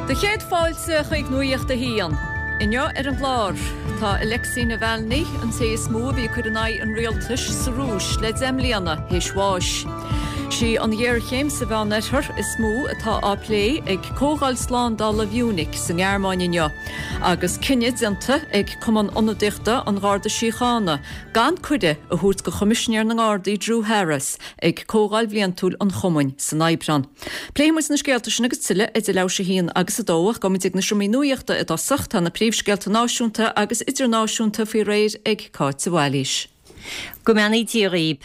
Do chéad fáilte chuig Nuacht a hAon. Inniu ar an gclár, tá Alexei Navalny, an té is mó a bhí ag cur in aghaidh an rialtais sa Rúis le 10 mbliana, théis bháis. Sí an ghéarchéim sa Mheánoirthear is mó atá á plé ag Comhdháil Slándála Mhunich sa nGearmáin inniu, agus cinneadh déanta ag Cumann Ionadaíochta an Gharda Síochána gan cuireadh a thabhairt do Choimisinéir na nGardaí Drew Harris ag Comhdháil Bhliantúil an Chumainn san Aibreán. Pléifidh muid na scéalta sin agus tuilleadh idir leathuair théis 1 agus 2 ach gabhfaidh muid ag na seomraí nuachta i dtosach. Tá na príomhscéalta náisiúnta agus idirnáisiúnta faoi réir ag Cáit de Bhailís. Go mbeannaí Dia dhaoib.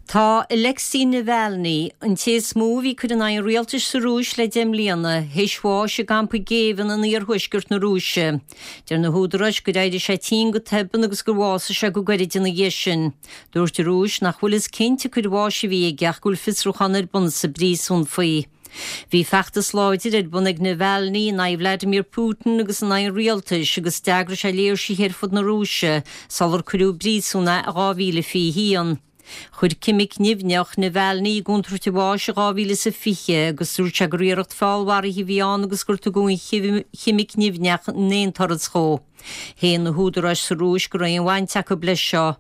Tá Alexei Navalny, an té is mó a bhí ag cur in aghaidh an rialtais sa Rúis le 10 mbliana, théis bháis i gcampa géibhinn in iarthuaisceart na Rúise. Deir na húdaráis gur éirigh sé tinn go tobann agus gur bhásaigh sé go gairid ina dhiaidh sin. Dúirt an Rúis nach bhfuil fhios cén tsiocair bháis a bhí aige ach go bhfuil fiosrúchán ar bun sa bpríosún faoi. Bhí feachtas láidir ar bun ag Navalny in aghaidh Vladimir Putin agus in aghaidh an rialtais agus d'eagraigh sé léirsithe ar fud na Rúise sular cuireadh i bpríosún é i 2021. Chuir ceimic nimhneach Navalny i gcontúirt a bháis i 2020 agus dúirt sé gur iarracht feallmharaithe a bhí ann agus gur tugadh an cheimic nimhneach in aon turas dhó. Shéan na húdaráis sa Rúis go raibh aon bhaint acu leis seo.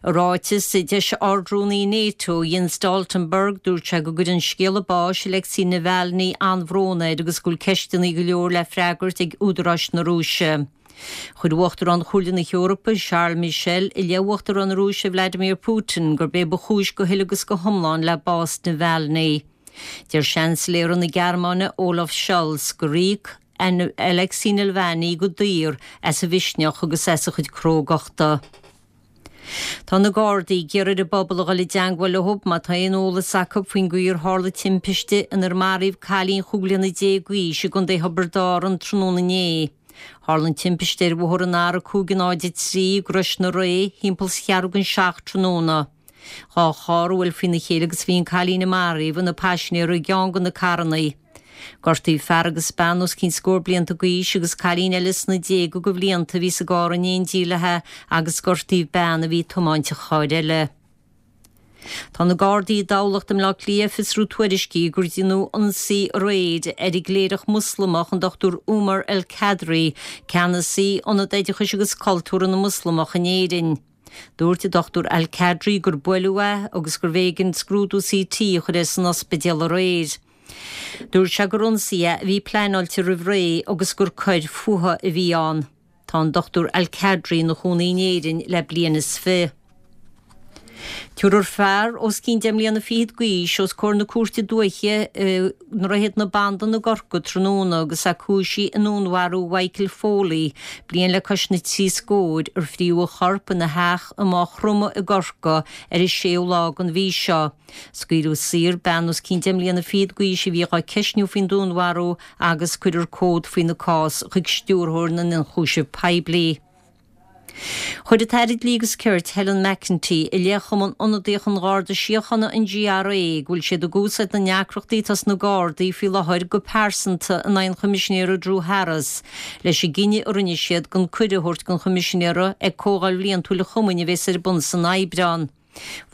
I ráiteas a d'eisigh Ard-Rúnaí NATO, Jens Stoltenberg, dúirt sé go gcuireann scéala báis Alexei Navalny an-bhrón air agus go bhfuil ceisteanna go leor le freagairt ag údaráis na Rúise. Chuir Uachtarán Chomhairle na hEorpa, Charles Michel, i leith Uachtarán na Rúise Vladimir Putin gurb é ba chúis go huile agus go hiomlán le bás Navalny. Deir Seansailéara na Gearmáine, Olaf Scholz, gur íoc Alexei Nalvany go daor as a mhisneach agus as a chuid crógachta. Tá na Gardaí ag iarraidh ar an bpobal a dhul i dteangmháil leo má tá aon eolas acu faoin gcaoi ar tharla timpiste inar maraíodh cailín chúig bliana déag d'aois i gContae Thiobraid Árann tráthnóna inné. Tharla an timpiste ar bhóthar an R503 i gCrois na Ré thimpeall 's cheathrú don seacht tráthnóna. Dá charr a bhuail faoina chéile agus bhí an cailín a maraíodh ina paisinéir i gceann de na carrannaí. Gortaíodh fear agus bean os cionn scór blianta d'aois agus cailín eile sna déaga de bhlianta a bhí sa gcarr in éindí léi agus gortaíodh bean a bhí ag tiomáint an chairr eile. Tá na Gardaí i dTamhlacht i mBleá Cliath ag fiosrú tuairiscí gur deineadh ionsaí aréir ar an gcléireach Moslamach an Dr Umar El Kadri, ceannasaí Ionad Oideachais agus Cultúrtha na Moslamach in Éirinn. Dúirt an Dr Al Kadri gur buaileadh é agus gurbh éigean scrúdú CT a chur air san ospidéal aréir. Dúirt sé gur ionsaí é a bhí pleanáilte roimh ré agus gur coir fuatha a bhí ann. Tá an Dr Al Kadri ina chónaí in Éirinn le bliain is fi. Tabharfar fear os cionn deich mbliana fichead d'aois os comhair na Cúirte Dúiche i nDroichead na Bandan i gCorcaigh tráthnóna agus é cúisithe i ndúnmharú Mhichael Foley, bliain le cois na dtrí scóir, ar fríodh a chorp ina theach i Maigh Chromtha i gCorcaigh ar an séú lá den mhí seo. Scaoileadh saor bean os cionn deich mbliana fichead d'aois a bhí dhá ceistniú faoin dúnmharú agus cuirfear comhad faoina cás chuig Stiúrthóir na nIonchúiseamh Poiblí. Chuir an tAire Dlí agus Cirt, Helen McEntee, i leith Chumann Ionadaíoch an Gharda Síochána, an GRA, go bhfuil siad ag úsáid na ndeacrachtaí atá sna Gardaí faoi láthair go pearsanta in aghaidh an Choimisinéara Drew Harris leis an gcinneadh a rinne siad gan cuireadh a thabhairt don Choimisinéara ag Comhdháil Bhliantúil an Chumainn a bheas ar bun san Aibreán.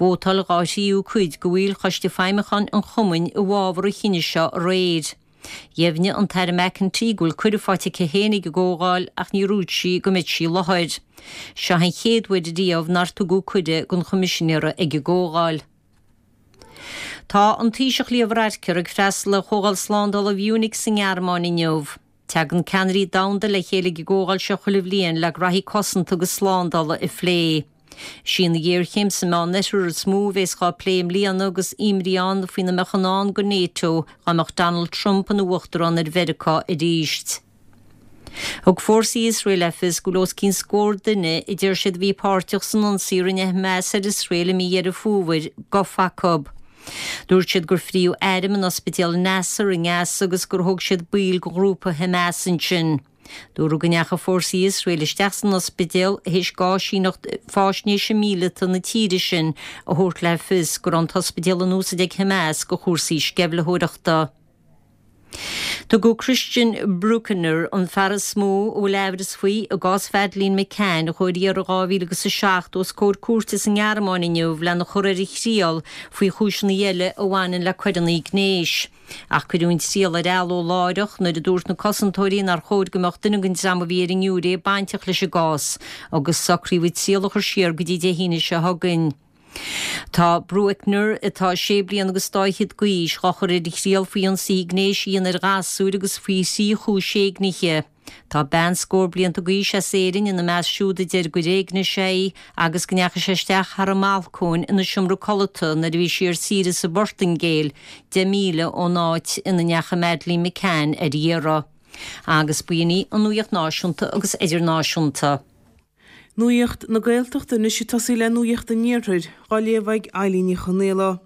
Vótáil dhá thríú cuid de bhaill Choiste Feidhmiúcháin an Chumainn i bhfabhar an chinnidh seo aréir. Dheimhnigh an tAire McEntee go bhfuil cuireadh faighte aici féin ag an gcomhdháil ach níor dhúirt sí go mbeidh sí i láthair. Seo an chéad uair riamh nár tugadh cuireadh don Choimisinéara ag an gcomhdháil. Tá an Taoiseach Leo Varadkar ag freastal ar Chomhdháil Slándála Mhunich sa nGearmáin inniu. Tagann ceannairí domhanda le chéile ag an gcomhdháil seo chuile bhliain le graithí cosanta agus slándála a phlé. Is í an ghéarchéim sa Meánoirthear is mó a bheas dhá plé i mbliana agus imní ann faoina mbeadh i ndán do NATO dá mbeadh Donald Trump ina uachtarán ar Mheiriceá arís. Thug fórsaí Iosrael le fios go bhfuil os cionn scór duine a deir siad a bhí páirteach san ionsaí a rinne Hamas ar Iosrael i mí Dheireadh Fómhair gafa acu. Dúirt siad gur fríodh airm in ospidéal Nasser i nGaza agus gur thóg siad baill de ghrúpa Hamas ansin. Dúradh go ndeachaigh fórsaí Iosrael isteach san ospidéal théis d'áisíneacht faisnéise míleata na tíre sin a thabhairt le fios go raibh an t-ospidéal in úsaid ag Hamas do chúrsaí sceimhlitheoireachta. Tugadh Christian Brueckner, an fear is mó a bhfuil aimhreas faoi i gcás Mhadeleine McCann a chuaigh ar iarraidh in 2007, os comhair cúirte sa nGearmáin inniu lena chur ar a thriail faoi chúiseanna eile a bhaineann le coireanna gnéis. Ach cuireadh an triail ar athló láithreach nuair a dúirt na cosantóirí nár chóir go mbeadh duine den dream a bhí ar an ngiúiré bainteach leis an gcás agus socraíodh an triail a chur siar go dtí Dé hAoine seo chugainn. Tá Brueckner, atá sé bliana agus dá fhichead d'aois, dhá chur ar a thriail faoi ionsaithe gnéis a dhéanamh ar ghasúir agus faoi thrí chúis éignithe. Tá bean scór blianta d'aois as Éirinn ina measc siúd a deir gur éignigh sé í agus go ndeachaigh sé isteach thar an mbalcóin ina seomra codlata nuair a bhí sí ar saoire sa bPortaingéil, 10 míle ón áit ina ndeachaigh Madeleine McCann ar iarraidh. Agus b'in í an nuaíocht náisiúnta agus idirnáisiúnta. Nuacht na Gaeltachta anois ag tosaí le Nuacht an Iarthair, á léamh ag Eilín Ní Chonaola.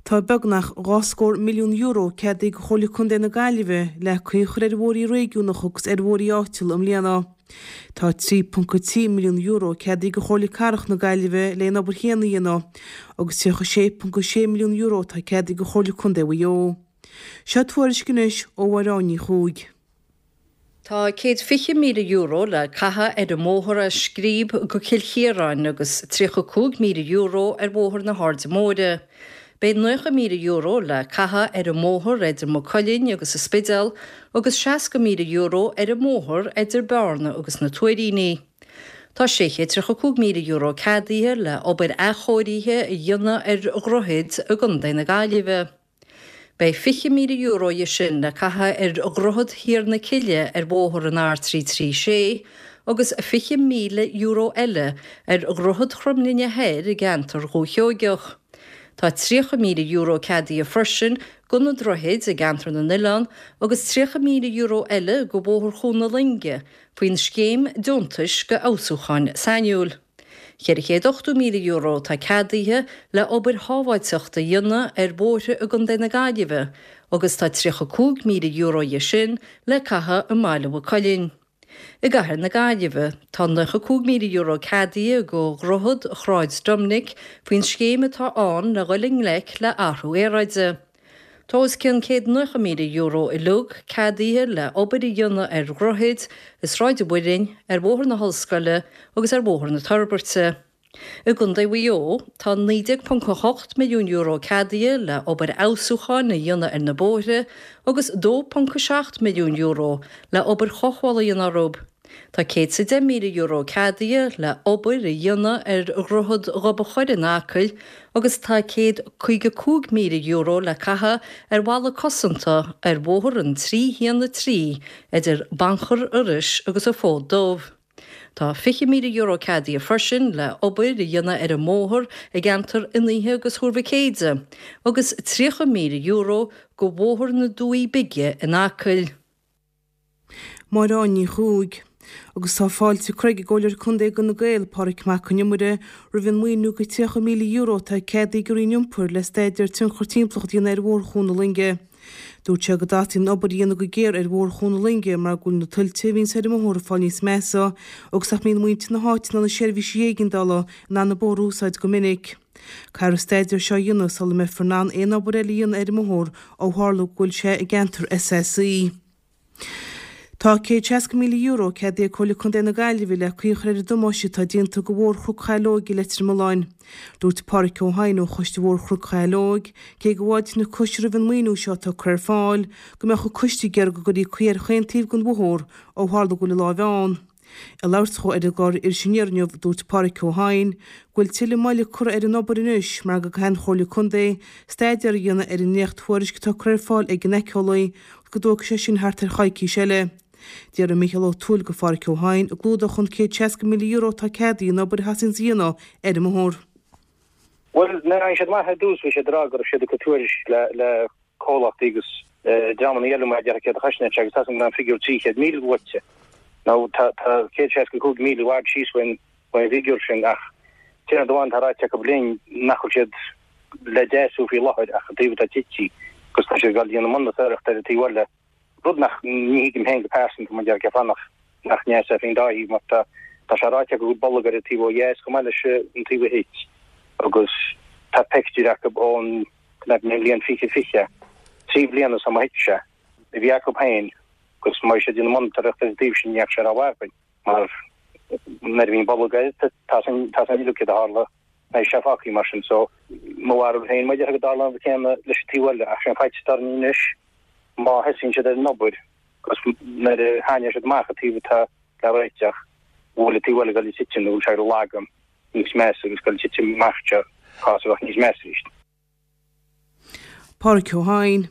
Tá beagnach €20 milliún ceadaithe ag Comhairle Contae na Gaillimhe le caoi a chur ar bhóithrí réigiúnacha agus ar bhóithrí áitiúla i mbliana. Tá €3.3 milliún ceadaithe ag Comhairle Cathrach na Gaillimhe le an obair chéanna a dhéanamh agus €36.6 milliún atá ceadaithe ag Comhairle Contae Mhaigh Eo. Seo tuairisc anois ó Mháire Ní Chuaig. Tá €120,000 le caitheamh ar an mbóthar as Scríb go Cill Chiaráin agus €35,000 ar Bhóthar na hAirde Móire. Beidh €90,000 le caitheamh ar an mbóthar idir Maigh Cuilinn agus an Spidéal agus €60,000 ar an mbóthar idir Bearna agus na Tuairíní. Tá €635,000 ceadaithe le obair athchóirithe a dhéanamh ar dhroichid i gContae na Gaillimhe. Beidh €20,000 dhe sin le caitheamh ar Dhroichead Thiar na Cille ar bhóthar an R336 agus €20,000 eile ar Dhroichead Chromghlinne Thoir i gceantar Dhúiche Sheoigeach. Tá €30,000 ceadaithe freisin do na droichid i gceantar na nOileán agus €30,000 eile do Bhóthar Chuan na Loinge faoin scéim deontais do fheabhsúcháin sainiúil. €480,000 atá ceadaithe le obair shábháilteachta a dhéanamh ar bhóithre i gContae na Gaillimhe agus tá €35,000 dhe sin le caitheamh i mBaile Mhaigh Cuilinn. I gCathair na Gaillimhe, tá €95,000 ceadaithe do Dhroichead Shráid Doiminic faoin scéim atá ann le dhul i ngleic le athrú aeráide. Tá os cionn €190,000 uilig ceadaithe le obair a dhéanamh ar dhroichid i Sráid an Mhuilinn, ar Bhóthar na hOllscoile agus ar Bhóthar na Toirbeirte. I gContae Mhaigh Eo, tá €19.8 milliún ceadaithe le obair fheabhsúcháin a dhéanamh ar na bóithre agus €2.7 milliún le obair chothabhála a dhéanamh orthu. Tá €110,000 ceadaithe le obair a dhéanamh ar Dhroichead Ghob an Choire in Acaill agus tá €155,000 le caitheamh ar bhalla cosanta ar bhóthar an 313 idir Banchar Iorrais agus an Fód Dubh. Tá €20,000 ceadaithe freisin le obair a dhéanamh ar an mbóthar i gceantar Fhionn Oíche agus Thuar Mhic Éide agus €30,000 do Bhóthar na Dumhaí Bige in Acaill. Máire Ní Chuaig. Agus tá fáilte curtha ag an gComhairleoir Contae d'Fhine Gael, Pádraig Mac Con Iomaire, roimh an maoiniú de €30,000 atá ceadaithe ag an Roinn Iompair le staidéar tionchar timpeallachta a dhéanamh ar Bhóthar Chuan na Loinge. Dúirt sé go dteastaíonn an obair a dhéanamh go géar ar Bhóthar Chuan na Loinge mar go bhfuil na tuilte a bhíonns ar an mbóthar ag fáil níos measa agus nach mbíonn muintir na háite ná na seirbhísí éigeandála in ann an bóthar a úsáid go minic. Caithfear an staidéar seo a dhéanamh sula mbeifear in ann aon obair eile a dhéanamh ar an mbóthar ó tharla go bhfuil sé i gceantar SSE. Tá €160,000 ceadaithe ag Comhairle Contae na Gaillimhe le caoi a chur ar an damáiste atá déanta do Bhóthar Chnoc Shaileoige i Leitir Mealláin. Dúirt Páraic Ó hEidhin ó Choiste Bhóthar Chnoc Shaileoig, cé go bhfáiltíonn an coiste roimh an maoiniú seo atá curtha ar fáil, go mbeadh an coiste ag iarraidh go gcuirfí caoi ar chaon taobh den bhóthar ó tharla go bhfuil an láimh ann. Ag labhairt dhó ar an gclár Iris Aniar inniu, dúirt Páraic Ó hEidhin go bhfuil tuilleadh moille curtha ar an obair anois mar go gcaithfidh an Chomhairle Contae staidéar a dhéanamh ar an ndréacht-thuairisc atá curtha ar fáil ag an éiceolaí agus go dtógfaidh sé sin thart ar choicís eile. D'fhiafraigh Mícheál Ó Tuathail de Pháraic Ó hEidhin an gclúdódh an €160,000 atá ceadaithe an obair a theastaíonns a dhéanamh ar an mbóthar. Bhuel, nuair a tháinig siad amach ar dtús bhí siad ag rá go raibh siad ag cur tuairisc le comhlachtaí agus dreamanna eile mar a déarfá céard a chosnaíonn sé agus tá a fhios agam go raibh an figiúr 300,000 luaite. Now tá 165,000 i bhfad síos faoin bhfigiúr sin ach aon rud amháin atá ráite acu linn nach bhfuil siad le deasú faoi láthair ach an taobh atá tite agus tá siad ag dul a dhéanamh monatóireacht ar an taobh eile. Rud nach, ní thuigim féin go pearsanta mar a déarfá cén fáth nach nach ndeasófaí an dá thaobh mar tá tá sé ráite acu go bhfuil bolg ar an taobh ó dheas chomh maith leis an taobh a thit agus tá pictiúir acu ón mbliain 2020, 3 bliana ó thit sé. a bhí acu féin agus má bhí siad ag déanamh monatóireacht ar an dtaobh sin ní fhaca sé rómhaith againn mar nuair a bhíonn bolg air tá san tá san uilig céard a tharla beidh sé fágtha mar sin so mo bharúil féin mar a déarfá go dtarlóidh an rud céanna leis an taobh eile ach sé an faitíos atá orainn anois má thosaíonn siad ar an obair agus nuair a thaitneoidh siad amach an taobh atá le réiteach go bhfuil an taobh eile ag dul ag titim nó go bhfuil sé ag lagú níos measa agus ag dul ag titim amach seo cás a bheadh níos measa arís. Pádraic Ó hEidhin.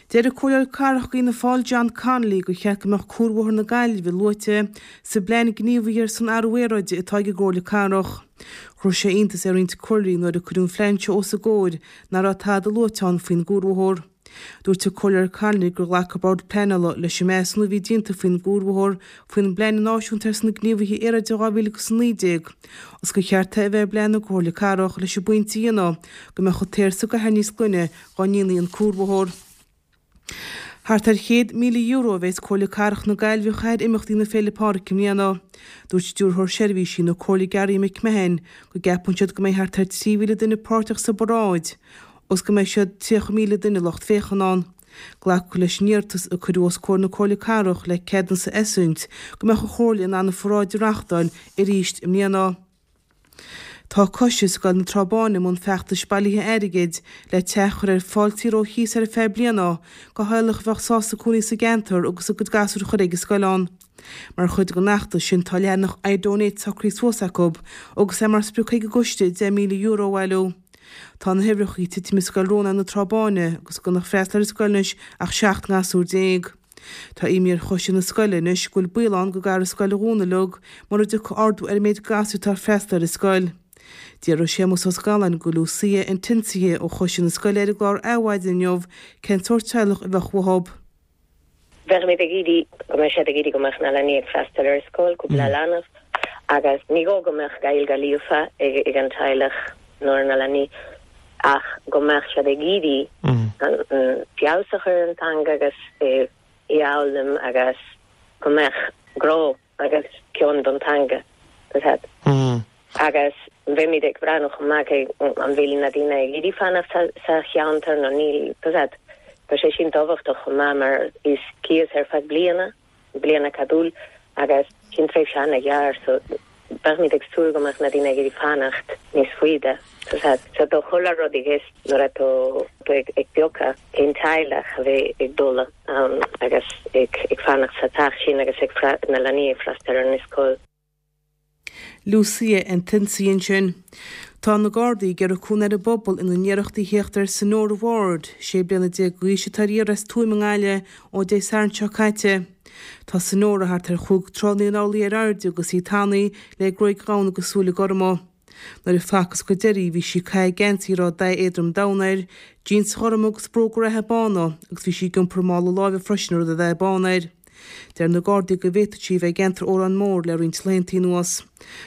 Deir an Comhairleoir Cathrach d'Fhianna Fáil John Connolly gur cheart go mbeadh Cuarbhóthar na Gaillimhe luaite sa bplean gníomhaithe ar son athrú aeráide atá ag an gComhairle Cathrach. Chuir sé iontas ar roinnt comhairleoirí nuair a cuireadh an phlean seo os a gcomhair nach raibh tada luaite ann faoin gcuarbhóthar. Dúirt an Comhairleoir Connolly gur ghlac an Bord Pleanála leis an measúnú a bhí déanta faoin gcuarbhóthar faoin bPlean Náisiúnta ar son Gníomhaithe Aeráide 2019 agus gur cheart é a bheith i bplean na Comhairle Cathrach leis an bpointe a dhéanamh go mbeadh an t-aer sa gcathair níos glaine dá ndéanfaí an cuarbhóthar. Thart ar €100,000 a bheas Comhairle Cathrach na Gaillimhe a chaitheamh ar imeachtaí na Féile Pádraig i mbliana. Dúirt Stiúrthóir Seirbhísí na Comhairle Garry McMahon go gceapann siad go mbeidh thart ar 3,000 duine páirteach sa bparáid agus go mbeidh siad 30,000 duine lucht féachana ann. Glacadh leis an iarratas a cuireadh os comhair na Comhairle Cathrach le ceadúnas a eisiúint go mbeadh an Chomhairle in ann an pharáid a reáchtáil arís i mbliana. Tá Coiste Scoil na Trá Báine i mbun feachtais bailithe airgid le teach a chur ar fáil saor ó chíos ar feadh bliana do theaghlach a bheadh sásta cónaí sa gceantar agus a gcuid gasúr a chur ag an scoil ann. Mar chuid den fheachtas sin tá leathanach iDonate socraithe suas acu agus é mar sprioc ag an gcoiste €10,000 a bhailiú. Tá na huimhreacha ag titim i Scoil Rónáin na Trá Báine agus gan ag freastal ar an scoil anois ach 17 ngasúr. Tá imní ar choiste na scoile anois go bhfuil baol ann go gcaithfear an scoil a dhúnadh uilig mura dtiocfaidh ardú ar an méid gasúr atá ag freastal ar an scoil. D'fhiafraigh Séamus Ó Scanláin de Lucia Antinsia ó choiste na scoile ar an gclár Adhmhaidin inniu cén sórt teaghlach a bheadh uathu. Bheimid ag iarraidh go mbeidh siad ag iarraidh go mbeadh na leanaí ag freastal ar scoil, cúpla leanbh, agus ní gá go mbeadh Gaeilge líofa ag an teaghlach nó ar na leanaí ach go mbeadh siad ag iarraidh feabhas a chur ar an teanga agus í a fhoghlaim agus go mbeadh grá agus cion don teanga, tá a fhios agat. Agus bheimid ag breathnú chomh maith cé an bhfuil na daoine ag iarraidh fanacht sa cheantar nó níl, tá a fhios agat. Tá sé sin tábhachtach chomh maith mar is cíos ar feadh bliana, bliana ceadúil, agus sin tréimhse an-ghearr so beimid ag súil go mbeadh na daoine ag iarraidh fanacht níos faide, tá a fhios agat. So tá chuile rud i gceist nuair atá tú ag piocadh cén teaghlach a bheidh ag dul ann agus ag fanacht sa teach sin agus ag na leanaí ag freastal ar an scoil. Lucia Antinsi ansin. Tá na Gardaí ag iarraidh cúnamh ar an bpobal ina n-iarrachtaí a theacht ar Sonora Ward, 16 bliana d'aois atá ar iarraidh as Tuaim i nGaillimh ó Dé Sathairn seo caite. Tá Sonora thart ar chúig troigh 9 n-orlaí ar airde agus í tanaí le gruaig dhonn agus súile gorma. Nuair a facthas go deiridh í bhí sí ag caitheamh geansaí a raibh dath éadrom donn air, jíons ghorma agus bróga reatha bána agus bhí sí ag iompar mála láimhe freisin a raibh dath bán air. Deir na Gardaí go bhféadfadh sí a bheith i gceantar Órán Mór le roinnt laethanta anuas.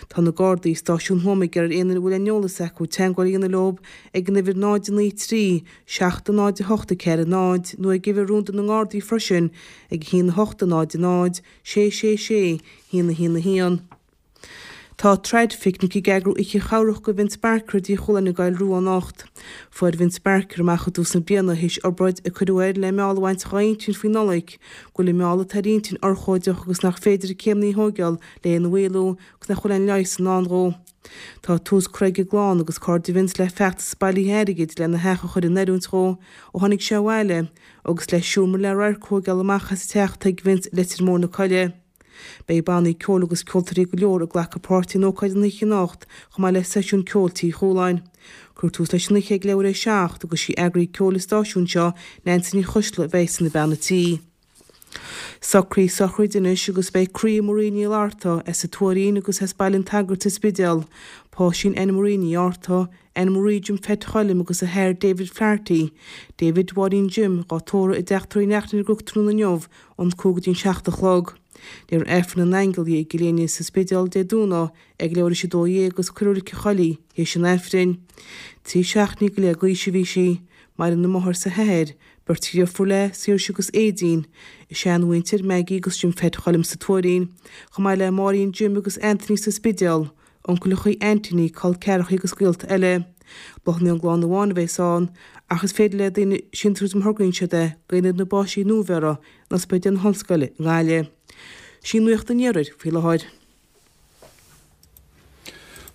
Tá na Gardaí i Stáisiún Thuama ag iarraidh ar aon duine a bhfuil aon eolas acu teagmháil a dhéanamh leo ag an uimhir 0 9 3 7 0 8 4 0 nó ag uimhir rúnda na nGardaí freisin ag 1 8 0 0 6 6 6 1 1 1. Tá Traidphicnic ag eagrú oíche chabhrach do Vince Barker i dTigh Chualáin i gCoill Rua anocht. Fuair Vince Barker amach i dtús na bliana, théis obráid a cuireadh air le meall a bhaint dhá intinn faoin Nollaig, go bhfuil an meall atá ar a intinn urchóideach agus nach féidir na céimeanna a thóigeáil le é a mhaolú agus nach bhfuil aon leigheas i ndán dhó. Tá tús curtha ag a gclann agus cairde Vince le feachtas bailithe airgid lena theach a chur in oiriúint dhó ó tháinig sé abhaile agus le seomra le radharc a thóigeáil amach as an teach atá ag Vince i Leitir Móir na Coille. Beidh bannaí ceoil agus ceoltóirí go leor ag glacadh páirte in ócáid an oíche anocht, chomh maith le seisiún ceoil Tí Chualáin. Cuirfear tús leis an oíche ag leathuair théis a 7 agus sí eagraí ceoil an stáisiúin seo, Neansaí Ní Choisdealbha a bheidh ina bean a tí. Socruithe sochraide anois agus beidh croí Marie Ní Fhlatharta, as an Tuairín agus as Baile an tSagairt sa Spidéal, páistín Anne Marie Ní Fhátharta, Anne Marie Jim Pheait Choilm agus a hathair David Flaherty, David Mháirín Jim, dhá tórramh i dTeach Tórraimh Uí Neachtain ar an gCnoc tráthnóna inniu ón 5 go dtí an 7 a chlog. Léifear Aifreann na nAingeal di i gCill Éinne sa Spidéal Dé Domhnaigh ag leathuair théis 12 agus cuirfear i Reilig an Choill í théis an Aifrinn. 13 seachtainí go leith d'aois a bhí sí. Maireann a máthair 's a hathair, beirt dheirfiúr léi, Saoirse agus Aedín, a seanmhuintir, Maggie agus Jim Pheait Choilm sa Tuairín, chomh maith le Máirín Jim agus Anthony sa Spidéal. Uncaileachaí, aintíní, col ceathrachaí agus gaolta eile. Bláthanna ón gclann amháin a bheas ann, ach is féidir le daoine síntiús má thograíonn siad é go Ionad na bPáistí Nuabheirthe in Ospidéal na hOllscoile i nGaillimh. Sin Nuacht an Iarthair faoi láthair.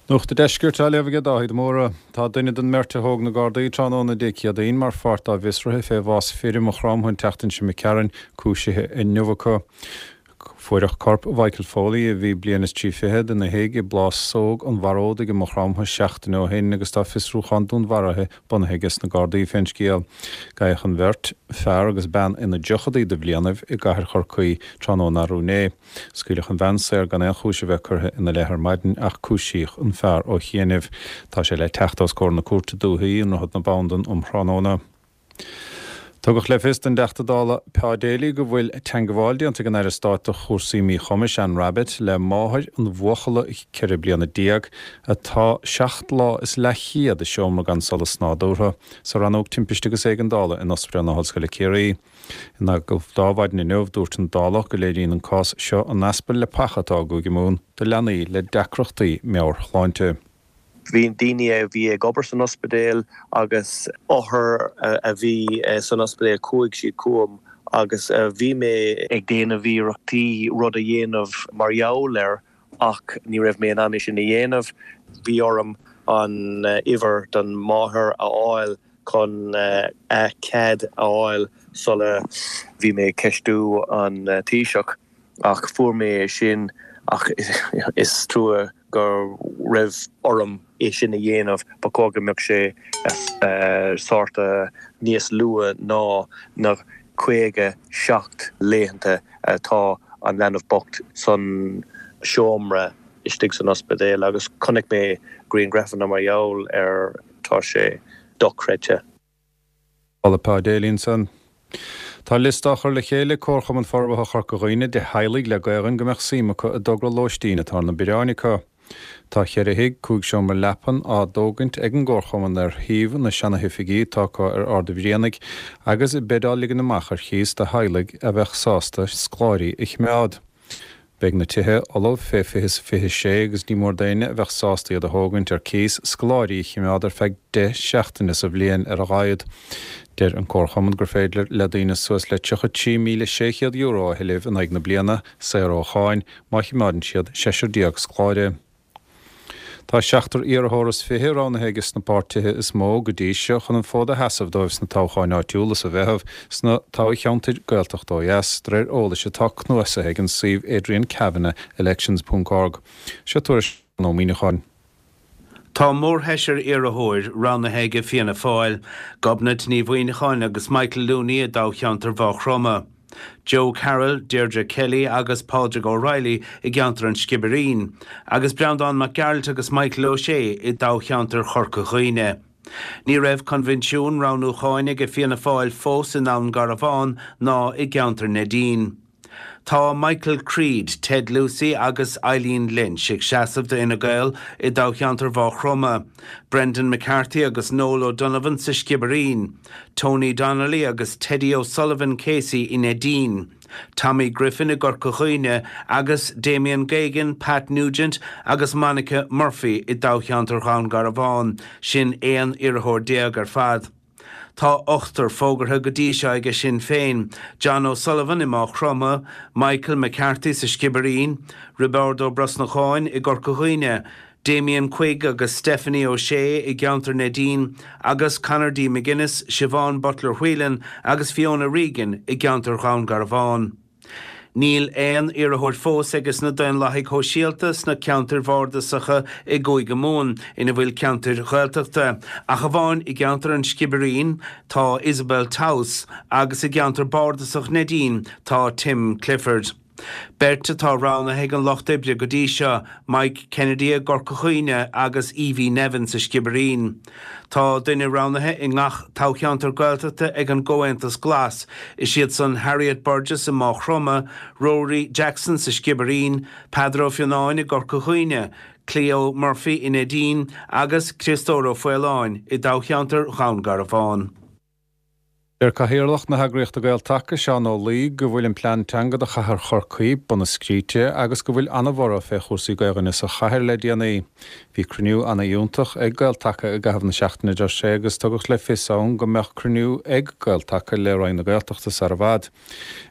Nuacht an Deiscirt á léamh aige Dáithí de Mórdha. Tá duine den mbeirt a thóg na Gardaí tráthnóna Dé Céadaoin mar pháirt dá bhfiosruithe fé bhás fir i Maigh Chromtha an tseachtain seo imigh tharainn cúisithe inniu acu. Fuaireadh corp Mhichael Foley, a bhí bliain is trí fichead, ina thigh i bPlásóg an Bharódaigh i Maigh Chromtha seachtain ó shin agus tá fiosrúchán dúnmharaithe bunaithe aige sna Gardaí fén scéal. Gabhadh an bheirt, fear agus bean ina dtríochadaí de bhlianaibh, i gcathair Chorcaí tráthnóna arú inné. Scaoileadh an bhean saor gan aon chúis a bheith curtha ina leith ar maidin ach cúisíodh an fear ó chianaibh. Tá sé le teacht os comhair na Cúirte Dúichí i nDroichead na Bandan um thráthnóna. Tugadh le fios don dTeachta Dála Pa Daly go bhfuil teangabháil déanta ag an Aire Stáit do chúrsaí Míchumais, Anne Rabbitte, le máthair an bhuachalla 14 bliana atá seacht lá is leathchéad i seomra gan solas nádúrtha sa Rannóg Timpiste agus Éigeandála in Ospidéal na hOllscoile Ciarraí. In agallamh do Adhmhaidin inniu, dúirt an Dálach go léiríonn an cás seo an easpa leapacha atá i gCúige Mumhan do leanaí le deacrachtaí meabhairshláinte. Bhí daoine a bhí ag obair san ospidéal agus othair a bhí san ospidéal, chuaigh siad chugam agus bhí mé ag déanamh iarrachtaí rud a dhéanamh mar gheall air ach ní raibh mé in ann é sin a dhéanamh. Bhí orm an uimhir don máthair a fháil chun a cead a fháil sula bhí mé ag ceistiú an Taoiseach. Ach fuair mé é sin ach is trua go raibh orm é sin a dhéanamh. Ba chóir go mbeadh sé sort níos luath ná na 57 laethanta atá an leanbh bocht san seomra istigh san ospidéal agus chonaic mé grianghrafanna mar gheall air, tá sé dochreidte. Dála Pa Daly ansan. Tá liosta á chur le chéile ag Comharchumann Forbartha Chorca Dhuibhne de theaghlaigh le Gaelainn go mbeadh suim acu i dtogra lóistín atá ar na bioráin acu. Tá cheithre thigh, 5 seomra leapan, á dtógaint ag an gComharchumann ar shuíomh na seanahoifigí atá acu ar Ard a' Bhrianaigh agus beid á ligean amach ar chíos do theaghlaigh a bheadh sásta scoláirí a chimeád. Beidh na tithe ullamh fé 2026 agus ní mór d'éinne a bheadh sásta iad a thógaint ar cíos scoláirí a chimeád ar feadh 10 seachtaine sa bhliain ar a laghad. Deir an Comharchumann gur féidir le daoine suas le €33,600 a thuilleamh in aghaidh na bliana, saor ó cháin, má chimeádann siad seisear déag scoláire. Tá seachtar iarrthóir is fiche roghnaithe aige sna páirtithe is mó go dtí seo chun an fód a sheasamh dóibh sna toghcháin áitiúla sa Mheitheamh sna toghcheantair Gaeltachta ó dheas, de réir eolais atá cnuasaithe ag an suíomh adriankavanaughelections ponc org. Seo tuairisc Seán Ó Muíneacháin. Tá mórsheisear iarrthóir roghnaithe aige Fianna Fáil, Gobnait Ní Mhuineacháin agus Michael Looney i dtoghcheantar Mhaigh Chromtha. Joe Carroll, Deirdre Kelly agus Pádraig O'Reilly i gceantar an Sciobairín, agus Breandán Mac Gearailt agus Michael O'Shea i dtoghcheantar Chorca Dhuibhne. Ní raibh coinbhinsiún roghnúcháin aige Fianna Fáil fós i nDún Garbhán ná i gceantar Neidín. Tá Michael Creed, Ted Lucey agus Eileen Lynch ag seasamh do Fhine Gael i dtoghcheantar Mhaigh Chromtha, Brendan McCarthy agus Noel O'Donovan sa Sciobairín, Tony Donnelly agus Teddy O'Sullivan KC i Neidín, Tommy Griffin i gCorca Dhuibhne agus Damien Geoghegan, Pat Nugent agus Monica Murphy i dtoghcheantar Dhún Garbhán, sin 11 iarrthóir ar fad. Tá ochtar fógartha go dtí seo aige Sinn Féin, John O'Sullivan i Maigh Chromtha, Michael McCarthy sa Sciobairín, Roibeárd Ó Brosnacháin i gCorca Dhuibhne, Damien Quigg agus Stephanie O'Shea i gceantar Neidín agus Conor D McGuinness, Siobhán Butler Whelan agus Fiona Regan i gceantar Dhún Garbhán. Níl aon iarrthóir fós aige sna Daonlathaigh Shóisialta sna ceantair bhardasacha i gCúige Mumhan ina bhfuil ceantair Ghaeltachta, ach amháin i gceantar an Sciobairín tá Isabel Towse agus i gceantar bardasach Neidín tá Tim Clifford. Beirt atá roghnaithe ag an Lucht Oibre go dtí seo, Mike Kennedy i gCorca Dhuibhne agus Evie Nevin sa Sciobairín. Tá duine roghnaithe i ngach toghcheantar Gaeltachta ag an gComhaontas Glas, is iad san Harriet Burgess i Maigh Chromtha, Rory Jackson sa Sciobairín, Peadar Ó Fionnáin i gCorca Dhuibhne, Cleo Murphy i Neidín agus Criostóir Ó Faoláin i dtoghcheantar Dhún Garbhán. Deir Cathaoirleach na heagraíochta Gael-Taca, Seán Ó Laoi, go bhfuil an plean teanga do chathair Chorcaí bunaidh scríte agus go bhfuil ana-bhorradh fé chúrsaí Gaelainne sa chathair le déanaí. Bhí cruinniú ana-fhiúntach ag Gael-Taca i gcaitheamh na seachtaine, a deir sé, agus tugadh le fios ann go mbeadh cruinniú ag Gael-Taca le Roinn na Gaeltachta sar i bhfad.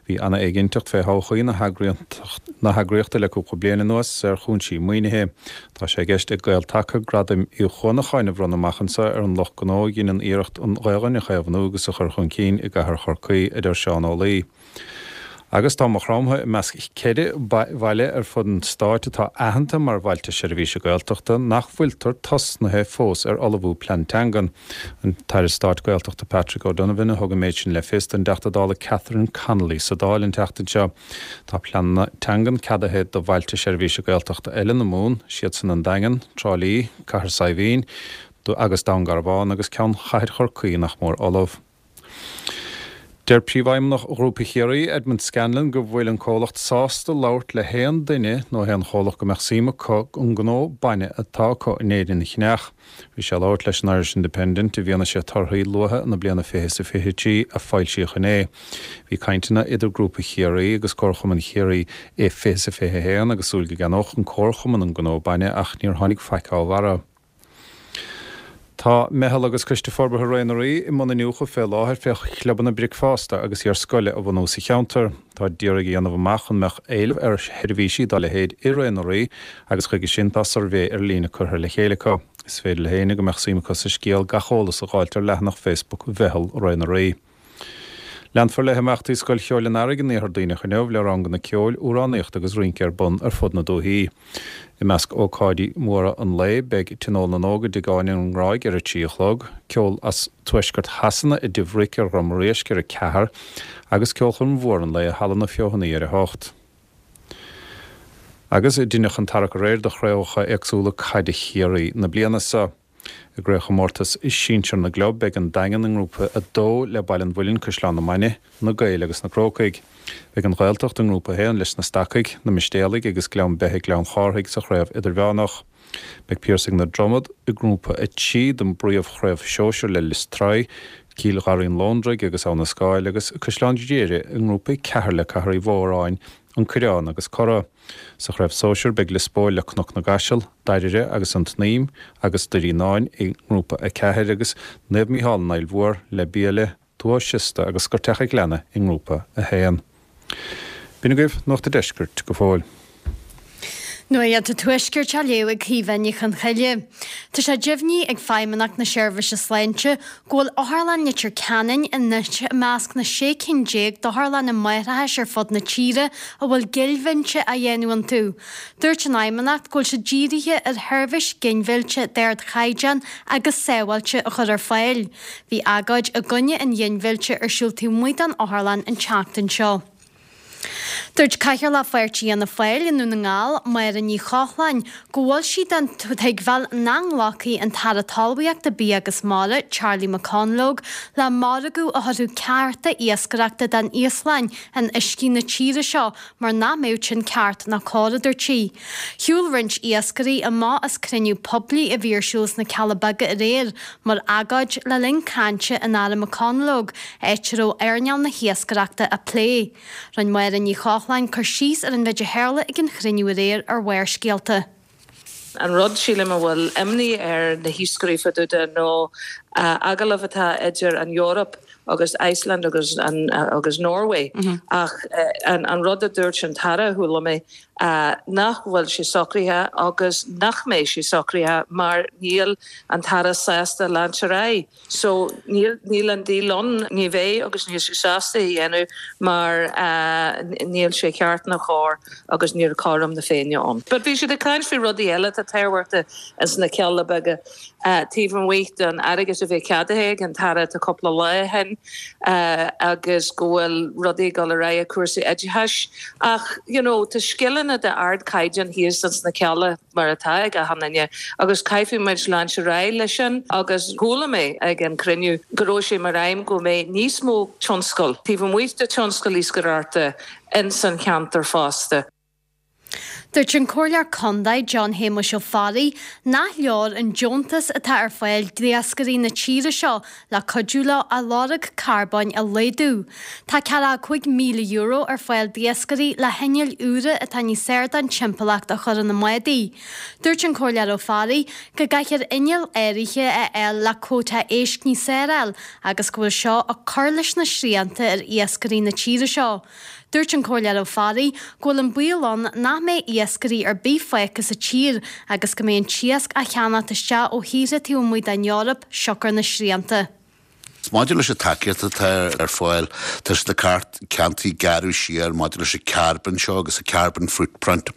Bhí ana-éiginnteacht fé thodhchaí na heagraíochta le cúpla bliain anuas ar chúinsí maoinithe. Tá sé i gceist ag Gael-Taca Gradaim Uí Chuanacháin a bhronnadh amach anseo ar an lucht gnó a dheineann iarracht an Ghaelainn a chaomhnú agus a chur chun cinn i gcathair Chorcaí, a deir Seán Ó Laoi. Agus tá Maigh Chromtha i measc 4 bhaile ar fud an stáit atá aitheanta mar Bhailte Seirbhíse Gaeltachta nach bhfuiltear tosnaithe fós ar ullmhú plean teangan. An tAire Stáit Gaeltachta Patrick O'Donovan a thug an méid sin le fios don dTeachta Dála Catherine Connolly sa Dáil an tseachtain seo. Tá pleananna teangan ceadaithe do bhailte seirbhíse Gaeltachta eile na Mumhan, siadsan an Daingean, Trá Lí, Cathair Saidhbhín agus Dún Garbhán agus ceann Chathair Chorcaí nach mór ullamh. Deir Príomhfheidhmeannach Ghrúpa Chiarraí, Edmond Scanlon, go bhfuil an comhlacht sásta labhairt le haon duine nó haon chomhlacht go mbeadh suim acu an gnó bainne atá acu in Éirinn a cheannach. Bhí sé ag labhairt leis an Irish Independent i bhfianaise torthaí luatha na bliana 20 is 23 a foilsíodh inné. Bhí cainteanna idir Grúpa Chiarraí agus Comharchumann Chiarraí i 20 is 21 agus súil go gceannódh an Comharchumann an gnó bainne ach níor tháinig faic dá bharra. Tá Meitheal agus Coiste Forbartha Ré na Rí i mbun iniúchadh fé láthair fé chlubanna bricfeasta agus iar-scoile a bhunú sa cheantar. Táid d'iarraidh a dhéanamh amach an mbeadh éileamh ar sheirbhísí dá leithéid i Ré na Rí agus chuige sin tá suirbhé ar líne curtha le chéile acu. Is féidir le héinne go mbeadh suim acu sa scéal gach eolas a dh'fháilt ar leathanach Facebook Mheitheal Ré na Rí. Leanfar le himeachtaí Scoil Cheoil an Earraigh an Iarthar Duibhneach inniu le ranganna ceoil, amhránaíochta agus rince ar bun ar fud na dúichí. I measc ócáidí móra an lae beidh Tionól na nÓg i dTigh Áine an nGráig ar a 3 a chlog, ceol as tuaisceart Shasana i dTigh Bhric ar Dhrom Réisc ar 4 agus ceolchoirm mhór an lae i Halla na Feothanaí ar 8. Agus deineadh an tarrac aréir do chraobhacha éagsúla caide Chiarraí na bliana seo. I gcraobhchomórtas sinsir na gclub, beidh an Daingean i nGrúpa 2 le Baile an Mhuilinn, Caisleán na Mainge, Na Gaeil agus na Crócaigh. Beidh an Ghaeltacht i nGrúpa 1 leis na Stacaigh, na Mistéalaigh agus Gleann Beithe Gleann Chárthaigh sa chraobh idirmheánach. Beidh Piarsaigh na Dromad i nGrúpa 3 den bpríomhchraobh shóisir le Lios Tuathail, Cill Gharraí an Lóndraigh agus Abha na Scáil agus Caisleán Ghriaire i nGrúpa 4 le Cathair Uí Mhóráin, An Coireán agus Cora. Sa chraobh sóisir beidh Lios Póil le Cnoc na gCaiseal, Dairire agus An tSnaidhm agus Doirí Fhíonáin i nGrúpa 4 agus Naomh Mícheál an Fhaill Mhór le Biaille, Tuath Siosta agus Scoirteach a' Ghleanna i nGrúpa 1. B'in agaibh Nuacht a' Deiscirt go fóill. Nuacht an Tuaiscirt á léamh ag Caoimhe Ní Chonchoille. Tá sé deimhnithe ag Feidhmeannacht na Seirbhíse Sláinte go bhfuil Otharlann Leitir Ceanainn anois i measc na 16 cinn d'otharlanna máithreachais ar fud na tíre a bhfuil ginmhilleadh á dhéanamh iontu. Dúirt an Fheidhmeannacht go bhfuil siad dírithe ar sheirbhís ginmhillte d'ardchaighdeán agus sábháilte a chur ar fáil. Bhí agóid i gcoinne an ghinmhillte ar siúl taobh amuigh den otharlann an tseachtain seo. Dúirt Cathaoirleach Pháirtí Fhianna Fáil i nDún na nGall, Máire Ní Chochláin, go bhfuil sí den tuigbheáil nach nglacfaidh an tAire Talmhaíochta, Bia agus Mara, Charlie McConalogue, le margadh a thabharfadh cearta iascaireachta don Íoslainn in uiscí na tíre seo mar nach mbeadh sin ceart ná cóir, a dúirt sí. Shiúil roinnt iascairí amach as cruinniú poiblí a bhí ar siúl sna Cealla Beaga aréir mar agóid le linn cainte an Aire McConalogue, áit a raibh earnáil na hiascaireachta á plé. Rinne Máire Ní Chochláin cur síos ar an mhéid a tharla ag an chruinniú aréir ar Bharrscéalta. An rud, sílim, a bhfuil imní ar na hiascairí fá dtaobh de nó agallamh atá idir an Eoraip agus Iceland agus agus Norway ach an rud a dúirt an tAire, chuala mé, nach bhfuil sé socraithe agus nach mbeidh sé socraithe mar níl an tAire sásta leaint ar aghaidh. So níl, níl an deal ann, ní bheidh agus níl sé sásta é a dhéanamh mar níl sé ceart ná cóir agus níl cothrom na Féinne ann. But bhí siad ag caint faoi rudaí eile atá tábhachtach ins na Cealla Beaga taobh amuigh den airgead a bhí ceadaithe ag an tAire tá cúpla lá ó shin agus go bhfuil rudaí ag dul ar aghaidh i cúrsaí oideachais ach you know tá scileanna d'ardchaighdeán thíos ins na Cealla. mar atá ag achan duine, agus caithfidh muid leaint ar aghaidh leis sin agus chuala mé ag an cruinniú go raibh sé mar aidhm go mbeidh níos mó tionscal taobh amuigh de tionscal iascaireachta ins an cheantar fosta. Dúirt an Comhairleoir Condae John Shéamuis Ó Fearraigh nach leor an deontas atá ar fáil d'iascairí na tíre seo le cuidiú leo a lorg carbóin a laghdú. Tá €45,000 ar fáil d'iascairí le hinnill úra atá níos fearr don timpeallacht a chur ina mbádaí. Dúirt an Comhairleoir Ó Fearraigh go gcaithfear innill áirithe a fháil le cuóta éisc níos fearr a fháil agus go bhfuil seo ag cur leis na srianta ar iascairí na tíre seo. Dúirt an Comhairleoir Ó Fearraigh go bhfuil an baol ann nach mbeidh iascairí ar bith fágtha sa tír agus go mbeidh an t-iasc á cheannacht isteach ó thíortha taobh amuigh den Eoraip siocair na srianta. Maidir leis an tacaíocht atá ar fáil, tá siad ag ceantaí gearradh siar maidir leis an carbon seo agus an carbon footprint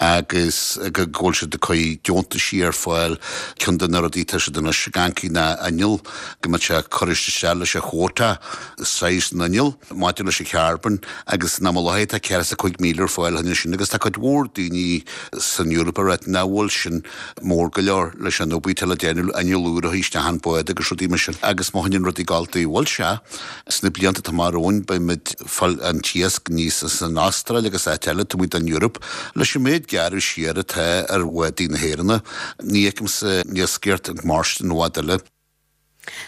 agus go bhfuil siad ag cur deontaisí ar fáil. Ceann de na rudaí atá siad anois ag amharc ná inneall, go mbeadh sé curtha isteach leis an chuóta saghas an inneall. maidir leis an charbon agus in am an láthair tá 45,000 ar fáil cheana sin agus tá cuid mhór daoine san Eoraip ag ráit nach bhfuil sin mór go leor leis an obair atá le déanamh, inneall úr a chur isteach an bád agus rudaí mar sin agus má choinníonn rudaí ag gabháil dóigh a bhfuil sé sna blianta atá amach romhainn beimid fáil an t-iasc aníos as an Astráil agus áit eile taobh amuigh den Eoraip leis an méid gearradh siar atá ar bhádaí na hÉireanna ní fheicimse an iascaireacht ag mairstin i bhfad eile.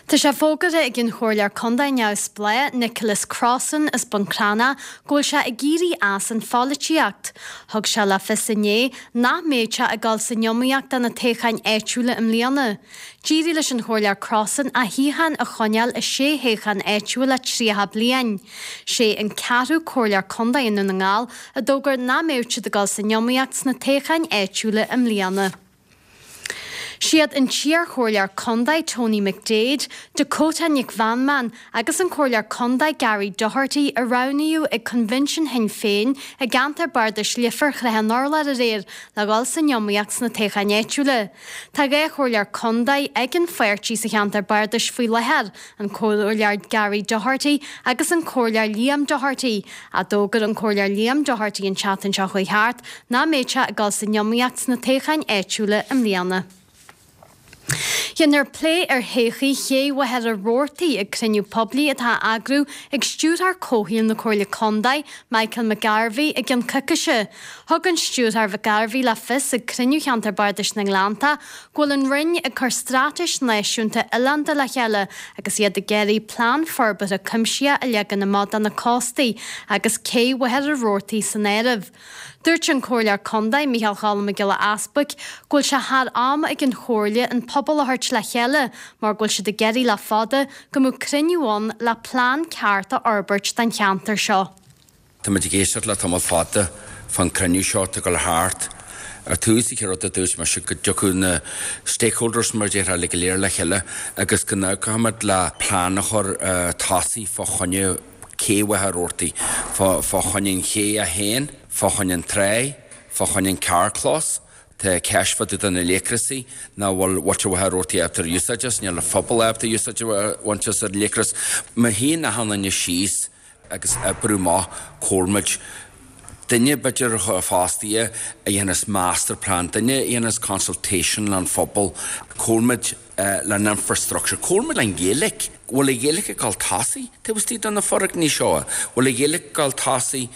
Tá sé fógartha ag an Chomhairleoir Contae neamhspleách Nicholas Crossan as Bun Cranncha go bhfuil sé ag éirí as an pholaitíocht. Thug sé le fios inné nach mbeidh sé ag dul san iomaíocht do na toghcháin áitiúla i mbliana. D'éirigh leis an Chomhairleoir Crossan a shuíochán a choinneáil i sé thoghchán áitiúil le 30 bliain. Sé an ceathrú Comhairleoir Contae i nDún na nGall a d'fhógair nach mbeadh siad ag dul san iomaíocht sna toghcháin áitiúla i mbliana. Siad an t-iarchomhairleoir contae Tony McDaid, Dakota Nic Mheanman agus an Comhairleoir Contae Gary Doherty a roghnaíodh ag Coinbhinsean Shinn Féin i gceantar bardais Leifear Shrath an Urláir aréir le dhul san iomaíocht sna toghcháin áitiúla. Tá 2 chomhairleoir contae ag an pháirtí sa cheantar bardais faoi láthair, an Comhairleoir Gary Doherty agus an Comhairleoir Liam Doherty. Ach d'fhógair an Comhairleoir Liam Doherty an tseachtain seo chuaigh thart nach mbeidh sé ag dul san iomaíocht sna toghcháin áitiúla i mbliana. Déanfar plé ar thodhchaí ché Mhachaire Rabhartaigh ag cruinniú poiblí atá á eagrú ag Stiúrthóir Comhshaoil na Comhairle Contae, Michael McGarvey, i gcionn coicíse. Thug an Stiúrthóir McGarvey le fios ag cruinniú Cheantar Bardais na nGleannta go bhfuil an Roinn ag cur straitéis náisiúnta oileánda le chéile agus iad ag iarraidh plean forbartha cuimsitheach a leagan amach do na cóstaí agus cé Mhachaire Rabhartaigh san áireamh. Dúirt an Comhairleoir Contae, Micheál Choilm Mac Giolla Easbuic, go bhfuil sé thar am ag an Chomhairle an pobal a thabhairt le chéile mar go bhfuil siad ag iarraidh le fada go mbeadh cruinniú ann le plean ceart a fhorbairt don cheantar seo. Tá muid ag éisteacht le tamall fada fán cruinniú seo atá ag dul thart. Ar tús, an chéad rud a dúirt mise go dtiocfadh na stakeholders mar a déarfá uilig go léir le chéile agus go n-amharcfadh muid le plean a chur tosaigh fá choinne cé Mhachaire Rabhartaigh, fá choinne an ché é féin, fá choinne an tráigh, fá choinne an carrchlós. Tá ceist fá dtaobh de na laochrasaí nach bhfuil muintir Mhachaire Rabhartaigh ábalta ar úsáid as, níl an phobal ábalta úsáid a bhaint as ar laochras. Má shuíonn achan duine síos agus oibriú amach comhairfimid duine b'fhéidir fostaithe a dhéanfas master plan, duine a dhéanfas consultation leis an phobal, comhairfimid le an infrastructure, comhairfimid le an Ghaeilge. Bhfuil an Ghaeilge ag dul tosaigh taobh istigh de na foirgní seo? Bhfuil an Ghaeilge ag dul tosaigh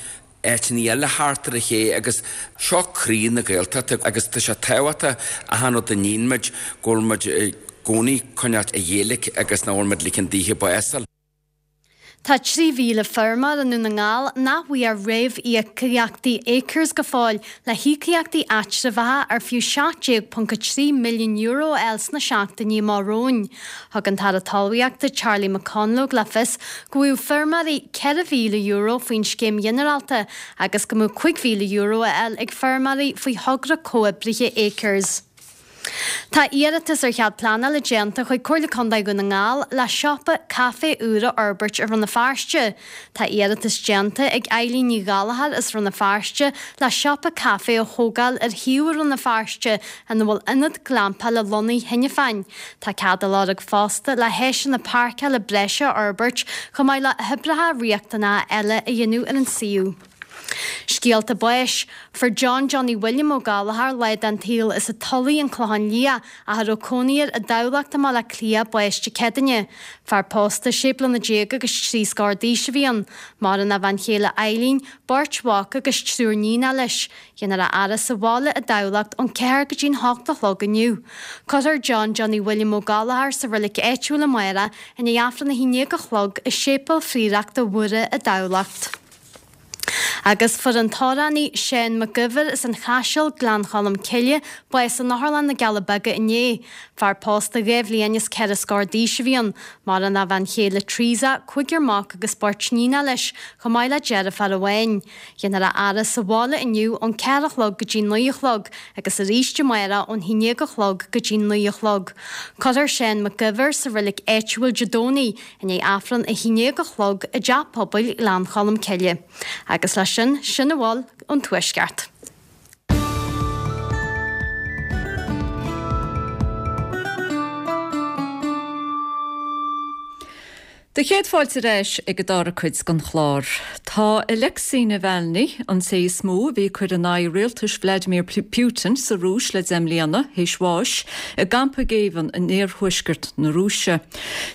áiteanna eile thart ar an ché agus seo croí na Gaeltachta agus tá sé tábhachtach achan rud a níonn muid go bhfuil muid i gcónaí coinneáilt an Ghaeilge agus nach bhfuil muid ligean daoithe bás a fháil. Tá 3,000 feirmeoir i nDún na nGall nach bhfuair réamhíocaíochtaí Acres go fóill le híocaíochtaí eatramhacha ar fiú €17.3 milliún a fháil sna seachtainí amach romhainn. Thug an tAire Talmhaíochta Charlie McConalogue le fios go bhfaigheadh feirmeoirí €4,000 faoin scéim ghinearálta agus go mbeadh €5,000 á fháil ag feirmeoirí faoi thogra comhoibrithe Acres. Tá iarratas ar chead pleanála déanta chuig Comhairle Contae Dhún na nGall le siopa caife úr a fhorbairt i Rann na Feirste. Tá iarratas déanta ag Eileen Ní Ghallchóir as Rann na Feirste le siopa caife a thógáil ar shuíomh i Rann na Feirste ina bhfuil ionad glampála lonnaithe cheana féin. Tá cead á lorg fosta le háiseanna páirceála breise a fhorbairt chomh maith le hoibreacha riachtanacha eile a dhéanamh ar an suíomh. Scéalta báis. Fuair John Johnny William Ó Gallchóir, lá den tsaol as an Tulaigh, An Clochán Liath, ach a raibh cónaí air i dTamhlacht i mBaile Átha Cliath, bás Dé Céadaoine. Fear pósta, sé bliana déag agus 30 scór d'aois a bhí ann. Maireann a bhean chéile Eileen, beirt mhac agus triúr níonacha leis. Déanfar a fhaire sa bhaile i dTamhlacht ón 4 go dtí'n 8 a chlog inniu. Cuirfear John Johnny William Ó Gallchóir sa roilig áitiúil amárach i ndiaidh Aifreann 11 a chlog i Séipéal Phrióireachta Mhuire i dTamhlacht. Agus fuair an t-amhránaí Seán Mac Uidhir as an Chaiseal, Gleann Cholm Cille, bás in Otharlann na gCealla Beaga inné. Fear pósta 2 bhliain is 4 scór d'aois a bhí ann. Maireann a bhean chéile Teresa, cúigear mac agus beirt níonacha leis, chomh maith le deirfiúr amháin. Déanfar a fhaire sa bhaile inniu ón 4 a chlog go dtí 9 a chlog agus arís amárach ón 11 a chlog go dtí 9 a chlog. Cuirfear Seán Mac Uidhir sa roilig áitiúil Dé Domhnaigh i ndiaidh Aifreann 11 a chlog i dTeach Pobail Ghleann Cholm Cille. Agus leis sin, sin a bhfuil ón Tuaisceart. Do chéad fáilte ar ais ag an dara cuid den chlár. Tá Alexei Navalny, an té is mó a bhí ag cur in aghaidh rialtais Vladimir Putin sa Rúis le deich mbliana, théis bháis i gcampa géibhinn in iarthuaisceart na Rúise.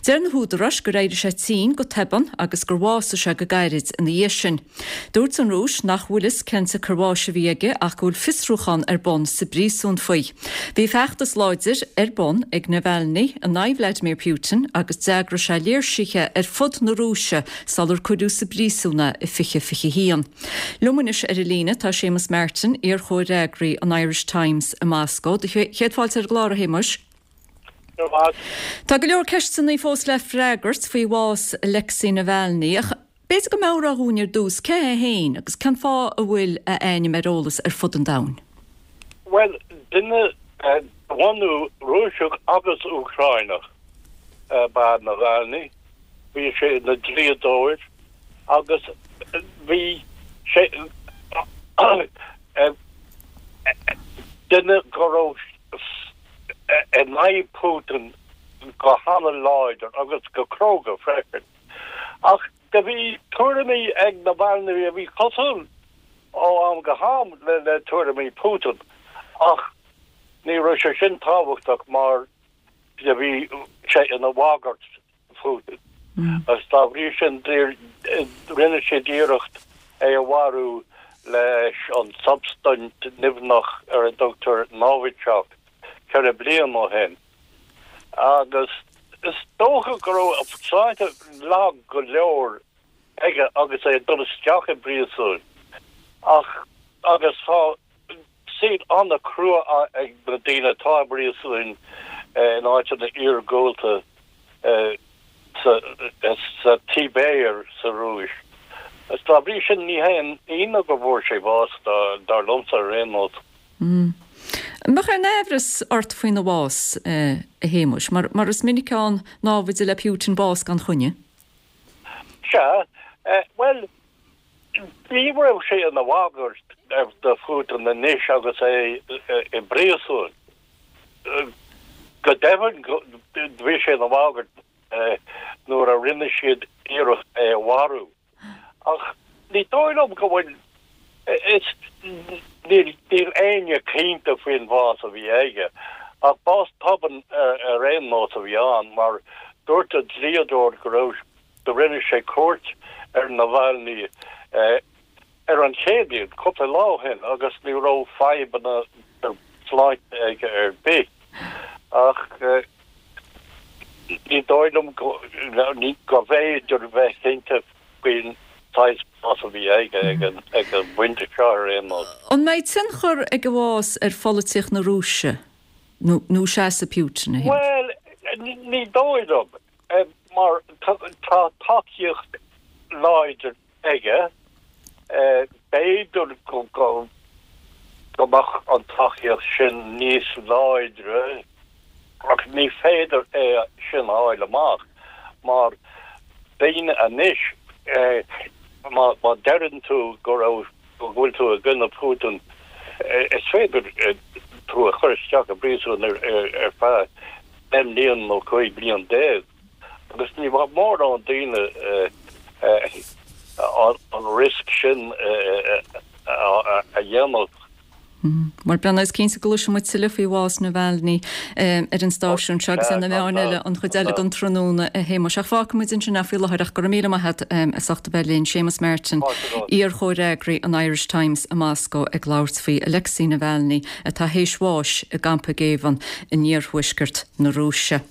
Deir na húdaráis gur éirigh sé tinn go tobann agus gur bhásaigh sé go gairid ina dhiaidh sin. Dúirt an Rúis nach bhfuil fhios cén tsiocair bháis a bhí aige ach go bhfuil fiosrúchán ar bun sa bpríosún faoi. Bhí feachtas láidir ar bun ag Navalny in aghaidh Vladimir Putin agus d'eagraigh sé léirsithe ar fud na Rúise sular cuireadh sa bpríosún é i 2021. Liom anois ar an líne tá Séamus Martin, iar-chomhfhreagraí an Irish Times i Moscó. Do chéad fáilte ar an gclár, a Shéamuis. Tá go leor ceisteanna fós le freagairt faoi bhás Alexei Navalny ach b'fhéidir go mbeadh rá dhúinn ar dtús cé hé féin agus cén fáth a bhfuil a ainm ar eolas ar fud an domhain? Bhuel, duine de bhunú Rúiseach agus Úcráineach ab ea Navalny. Bhí sé ina dlíodóir agus bhí sé duine go raibh in aghaidh Putin go hana-láidir agus go cróga freisin. Ach do bhí tuairimí ag Navalny a bhí cosúil ó am go ham le tuairimí Putin ach ní raibh sé sin tábhachtach mar do bhí sé ina bhagairt Phutin agus dá bhrí sin rinne siad iarracht é a mharú leis an tsubstaint nimhneach ar a dtugtar Novichok 4 bliana ó shin. Agus is dócha go raibh a shláinte lag go leor aige agus é ag dul isteach i bpríosún ach agus tá saol an-chrua ag na daoine atá i bpríosúin in áiteanna iargúlta sa tSibéir sa Rúis. Is dá bhrí sin ní haon ionadh go bhfuair sé bás, dar liomsa ar aon nós. An mbeadh aon aimhreas ort faoina bhás, a Shéamuis, mar is minic ann námhaid le Putin bás gan choinne? Sea, bhuel, Ní raibh sé ina bhagairt do Phutin anois agus é i bpríosún. Go deimhin bhí sé ina bhagairt nuair a rinne siad iarracht é a mharú. Ach ní dóigh liom go bhfuil, is, níl éinne cinnte faoin bhás a bhí aige. Ach bás tobann ar aon nós a bhí ann mar dúirt a dhlíodóir go raibh Do rinne sé cuairt ar Navalny ar an Chéadaoin, cúpla lá ó shin, agus ní raibh fadhbanna sláinte aige ar bith. Ach ní dóigh liom go bhféidir bheith cinnte faoin saghas bás a bhí aige ag an bpointe seo ar aon nós. An mbeidh tionchar ag a bhás ar pholaitíocht na Rúise nó seasamh Putin, a Shéamuis? Bhuel, ní dóigh liom. Mar tá tacaíocht láidir aige, b'fhéidir go mbeadh an tacaíocht sin níos láidre ach ní féidir é sin a fháil amach mar daoine anois, má deireann tú go raibh, go bhfuil tú i gcoinne Putin, is féidir tú a chur isteach i bpríosún ar feadh 10 mbliana nó 15 bliain agus ní bheadh mórán daoine an riosca sin a. aon nós. Bhuel, Breandán, is cinnte go gcloisfidh muid tuilleadh faoi bhás Navalny ar an stáisiún seo agus ar na meáin eile an chuid eile den tráthnóna, a Shéamuis. Ach fágfaidh muid ansin é faoi láthair ach go raibh míle maith agat as ucht a bheith linn. Séamus Martin, iar-chomhfhreagraí an Irish Times i Moscó ag labhairt faoi Alexei Navalny atá théis bháis i gcampa géibheann in iarthuaisceart na Rúise.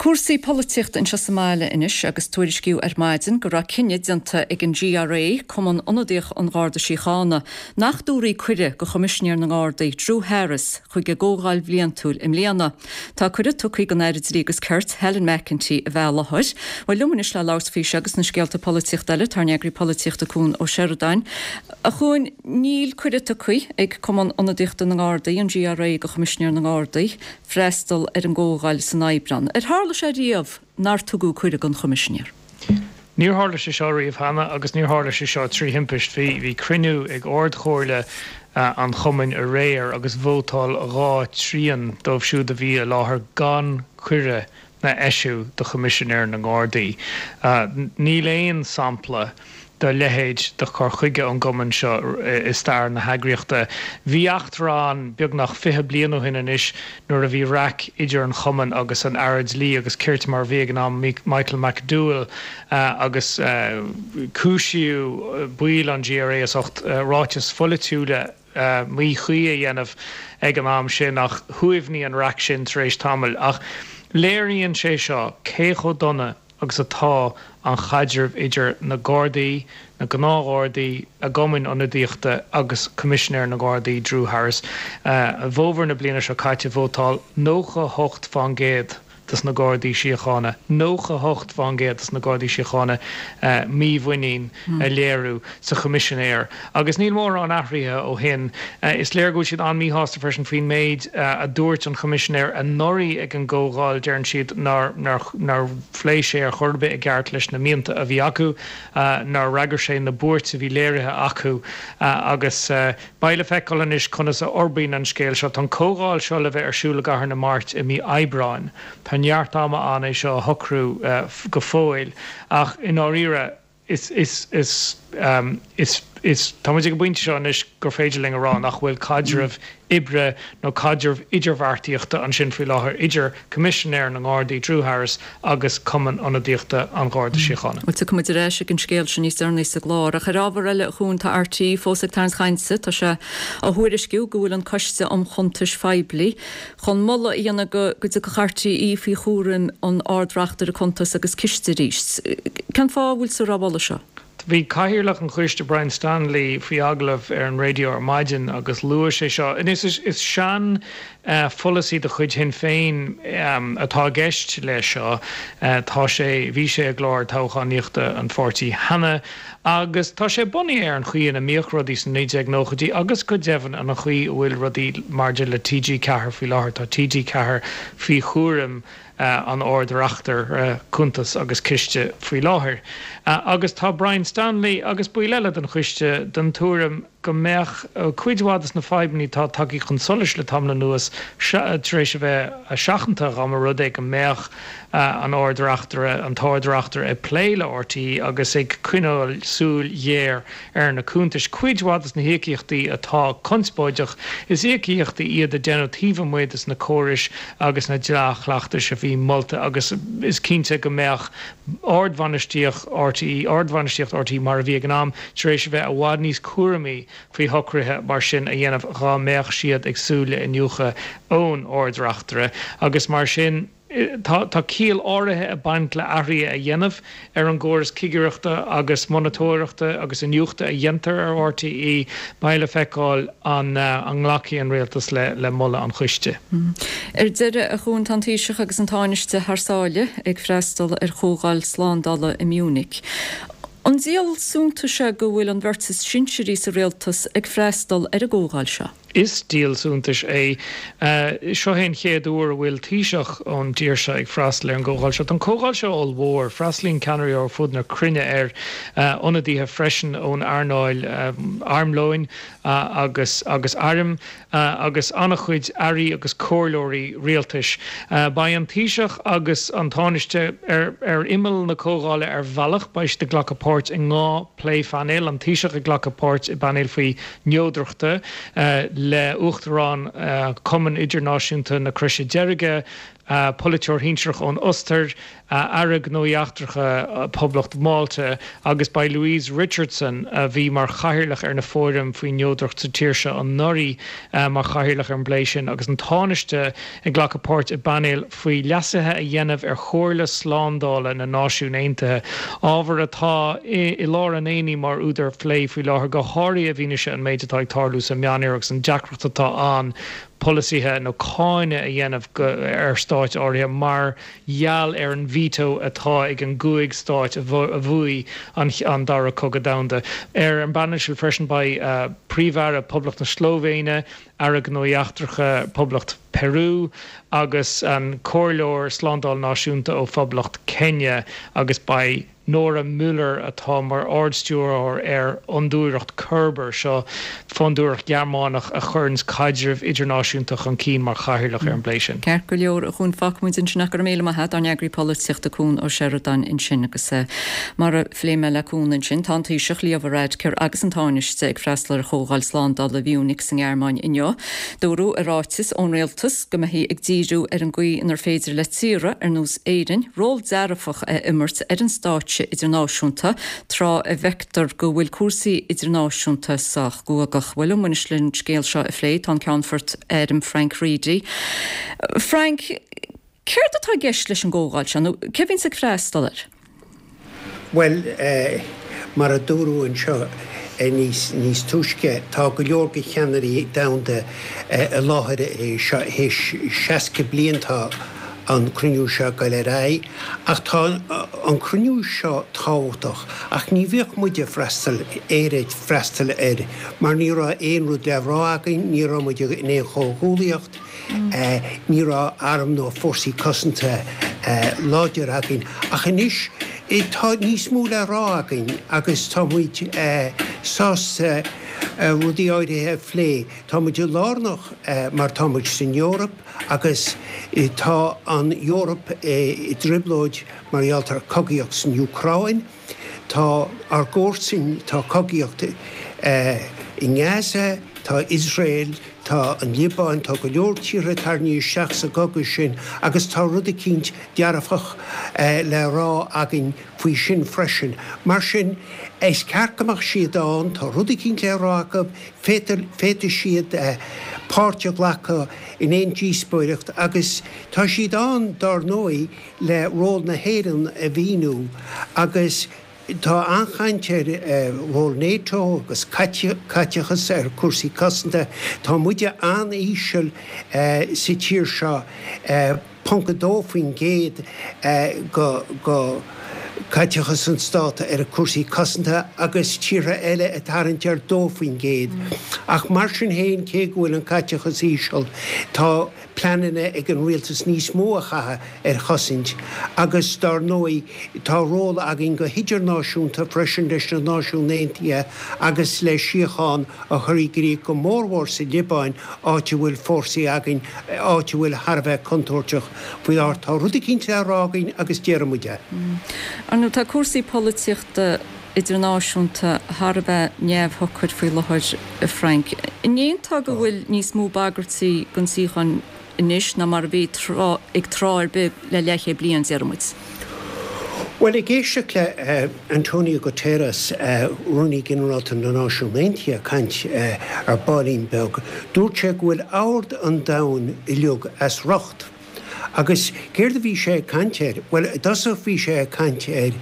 Cúrsaí polaitíochta anseo sa mbaile anois agus tuairiscíodh ar maidin go raibh cinneadh déanta ag an GRA, Cumann Ionadaíoch an Gharda Síochána, nach dtabharfaí cuireadh go Choimisinéir na nGardaí, Drew Harris, chuig a gcomhdháil bhliantúil i mbliana. Tá cuireadh tugtha don Aire Dlí agus Cirt, Helen McEntee, a bheith i láthair. Bhuel, liom anois le labhairt faoi seo agus na scéalta polaitíochta eile, tá ár n-eagraí polaitíochta Cuan Ó Seireadáin. A Chuain, níl cuireadh tugtha ag Cumann Ionadaíochta na nGardaí, an GRA, go Choimisinéir na nGardaí, freastal ar an gcomhdháil san Aibreán. Ar tharla sé riamh nár tugadh cuireadh don Choimisinéir? Níor tharla sé seo riamh cheana agus níor tharla sé seo trí thimpist. Bhí cruinniú ag Ard-Chomhairle an chumainn aréir agus vótáil 2 trian dóibh siúd a bhí i láthair gan cuireadh a eisiú do Choimisinéir na nGardaí. Níl aon sampla dá leithéid de chur chuige ón gcumann seo i stair na heagraíochta. Bhí eachtra ann beagnach 20 bliain ó shin anois nuair a bhí raic idir an chumann agus an Aire Dlí agus Cirt mar a bhí ag an am, Michael McDowell, agus cúisíodh baill an GRA as ucht ráitis pholaitiúla míchuí a dhéanamh ag an am sin ach shuaimhnigh an raic sin tar éis tamaill. Ach léiríonn sé seo cé chomh dona agus atá an chaidreamh idir na Gardaí, na gnáthghardaí, a gcumainn ionadaíochta agus Coimisinéir na nGardaí, Drew Harris. I bhfómhar na bliana seo caite vótáil 98 fán gcéad dos na Gardaí Síochána, 98 fán gcéad dos na Gardaí Síochána mímhuinín a léiriú sa Choimisinéir agus níl mórán athraithe ó shin. Is léir go bhfuil siad an-míshásta freisin faoin méid a dúirt an Choimisinéir anuraidh ag an gcomhdháil, deireann siad nár nár phléigh sé ar chor ar bith i gceart leis na mianta a bhí acu, nár fhreagair sé na buairt a bhí léirithe acu agus beidh le feiceáil anois conas a fhorbraíonn an scéal seo. Tá an comhdháil seo le bheith ar siúl i gCathair na Mairt i mí Aibreáin. Tá neart ama ann é seo a shocrú go fóill ach i ndáiríre is, is, is, is, is, tá muid ag an bpointe seo anois gur féidir linn a rá nach bhfuil caidreamh oibre nó caidreamh idirbheartaíochta ansin faoi láthair idir Coimisinéir na nGardaí, Drew Harris, agus Cumann Ionadaíochta an Gharda Síochána. Bhuel, tiocfaidh muid ar ais ag an scéal sin níos deireanaí sa gclár. Ach ar ábhar eile, a Chuain, tá RTÉ fós ag tarraingt cainte. Tá sé á thuairisciú go bhfuil an Coiste um Chuntais Phoiblí chun moladh a dhéanamh go dtiocfadh RTÉ faoi chúram an Ard-Reachtaire Cuntas agus Ciste arís. Cén fáth a bhfuiltear á mholadh seo? Bhí Cathaoirleach an Choiste, Brian Stanley, faoi agallamh ar an raidió ar maidin agus luaigh sé seo. Anois is sean pholasaí de chuid Shinn Féin atá i gceist leis seo. Tá sé, bhí sé i gclár toghchánaíochta an pháirtí cheana agus tá sé bunaithe ar an chaoi ina mbíodh rudaí sna 1990idí agus go deimhin an chaoi a bhfuil rudaí maidir le TG4 faoi láthair. Tá TG4 faoi chúram an Ard-Reachtaire Cuntas agus Ciste faoi láthair agus tá Brian Stanley agus baill eile den choiste den tuairim go mbeadh cuid mhaith de na fadhbanna atá tagtha chun solais le tamall anuas tar éis a bheith seachanta dá mba rud é go mbeadh an Ard-Reachtaire, an tArd-Reachtaire ag plé le RTÉ agus ag coinneáil súil ghéar ar na cuntais. Cuid mhaith de na híocaíochtaí atá conspóideach, is íocaíochtaí iad a deineadh taobh amuigh de na córais agus na dea-chleachtais a bhí molta agus is cinnte go mbeadh ardbhainistíocht RTÉ, ardbhainistíocht RTÉ mar a bhí ag an am, tar éis a bheith i bhfad níos cúramaí faoi shocruithe mar sin a dhéanamh dhá mbeadh siad ag súil le iniúchadh ón Ard-Reachtaire agus mar sin. Tá ciall áirithe ag baint le athruithe a dhéanamh ar an gcóras cigireachta agus monatóireachta agus iniúchta a dhéantar ar RTÉ. Beidh le feiceáil an nglacfaidh an Rialtas le moladh an choiste. Ar deireadh, a Chuain, tá an Taoiseach agus an Tánaiste thar sáile ag freastal ar chomhdháil slándála i Munich. An díol suntais é go bhfuil an bheirt is sinsearaí sa rialtas ag freastal ar an gcomhdháil seo? Is díol suntais é. Seo é an chéad uair a bhfuil Taoiseach ón dtír seo ag freastal ar an gcomhdháil seo. Tá an comhdháil seo ollmhór. Freastalaíonn ceannairí ó ar fud na cruinne air, ionadaithe freisin ón earnáil armlóin agus agus airm. agus an-chuid airí agus comhairleoirí rialtais. Beidh an Taoiseach agus an Tánaiste ar imeall na comhdhála ar bhealach. Beidh siad ag glacadh páirt i ndhá pléphainéal, an Taoiseach ag glacadh páirt i bpainéal faoi neodrachta le Uachtarán Chumann Idirnáisiúnta na Croise Deirge, polaiteoir shinsearach ón Ostair, Aire Gnóthaí Eachtracha Phoblacht Mhálta, agus beidh Louise Richardson, a bhí mar chathaoirleach ar na fóiraim faoi neodracht sa tír seo anuraidh, mar chathaoirleach ar an bplé sin, agus an Tánaiste ag glacadh páirt i bpainéal faoi leasuithe a dhéanamh ar Chomhairle Slándála na Náisiún Aontaithe, ábhar atá i lár an aonaigh mar údar phlé faoi láthair, go háirithe i bhfianaise an méid atá ag tarlú sa Meánoirthear agus an deacracht atá ann polasaithe nó cáineadh a dhéanamh ar stáit áirithe mar gheall ar an veto atá ag an gcúig stáit a bhuaigh an Dara Cogadh Domhanda. Ar an bpainéal sin freisin beidh Príomh-Aire Poblacht na Slóivéine, Aire Gnóthaí Eachtracha Poblacht Peru agus an Comhairleoir Slándála Náisiúnta ó Phoblacht Kenya agus beidh Nora Müller, atá mar Ard-Stiúrthóir ar Fhondúireacht Körber, seo fondúireacht Ghearmánach a chuireanns caidreamh idirnáisiúnta chun cinn, mar chathaoirleach ar an bplé sin. Ceart go leor, a Chuain, fágfaidh muid ansin ach go raibh míle maith a't, ár n-eagraí polaitíochta Cuan Ó Seireadáin ansin agus mar a phléigh mé le Cuan ansin, tá an Taoiseach, Leo Varadkar agus an Tánaiste ag freastal ar Chomhdháil Slándála Mhunich sa nGearmáin inniu. Dúradh i ráiteas ón Rialtas go mbeifí ag díriú ar an gcaoi inar féidir le tíortha ar nós Éirinn ról dearfach a imirt ar an stáitse idirnáisiúnta tráth a bhfeictear go bhfuil cúrsaí idirnáisiúnta sách guagach. Bhuel, liom anois leis an scéal seo a phlé tá an Ceannfort Airm Frank Reidy. Frank, céard atá i gceist leis an gcomhdháil seo nó cé a bhíonns ag freastal air? Bhuel, mar a dúradh anseo níos túisce, tá go leor de cheannairí domhanda i láthair é seo. Théis 60 bliain tá an cruinniú seo ag goil ar aghaidh. Ach tá an cruinniú seo tábhachtach. Ach ní bhíodh muid ag freastal, Éire ag freastal air, mar ní raibh aon rud le rá againn, ní raibh muid in aon chomhghuallaíocht, ní raibh arm nó fórsaí cosanta láidir againn. Ach anois tá níos mó le rá againn agus tá muid sásta rudaí áirithe a phlé. Tá muid lárnach mar tá muid san Eoraip agus tá an Eoraip i dtrioblóid mar gheall ar cogaíocht san Úcráin. Tá ár gcomharsain, tá cogaíocht i nGaza, tá Iosrael, tá an Liobáin, tá go leor tíortha tarraingthe isteach sa gcogadh sin agus tá rud eicínt dearfach le rá againn faoi sin freisin. Mar sin, is ceart go mbeadh siad ann, tá rud eicínt le rá acu, féadfaidh siad páirt a ghlacadh in aon díospóireacht agus tá siad ann, dár ndóigh, le ról na hÉireann a mhíniú agus tá an-chaint ar ról NATO agus caiteachas ar chúrsaí cosanta. Tá muide an-íseal sa tír seo, ponc 2% de chaiteachas an stát ar chúrsaí cosanta agus tíortha eile ag tarraingt ar 2%. Ach mar sin féin, cé go bhfuil an caiteachas íseal, tá. pleananna ag an rialtas níos mó a chaitheamh ar chosaint agus dár ndóigh tá ról againn go hidirnáisiúnta freisin leis na Náisiúin Aontaithe agus le síocháin a chur i gcrích go mórmhór sa Liobáin áit a bhfuil fórsaí againn, áit a bhfuil thar a bheith contúirteach faoi láthair. Tá rud eicínt le rá againn agus déarfaidh muid é. Ar ndóigh tá cúrsaí polaitíochta idirnáisiúnta thar a bheith neamhshocair faoi láthair, a Frank. An aontófá go bhfuil níos mó bagairtí don tsíocháin anois ná mar a bhí ag tráth ar bith le leathchéad bliain, déarfaidh muid? Bhuel, ag éisteacht le Antonio Guterres, Rúnaí Ginearálta na Náisiún Aontaithe, ag caint ar baillín beag, dúirt sé go bhfuil ord an domhain uilig as riocht. Agus céard a bhí sé ag caint air? Bhuel, i dtosach bhí sé ag caint ar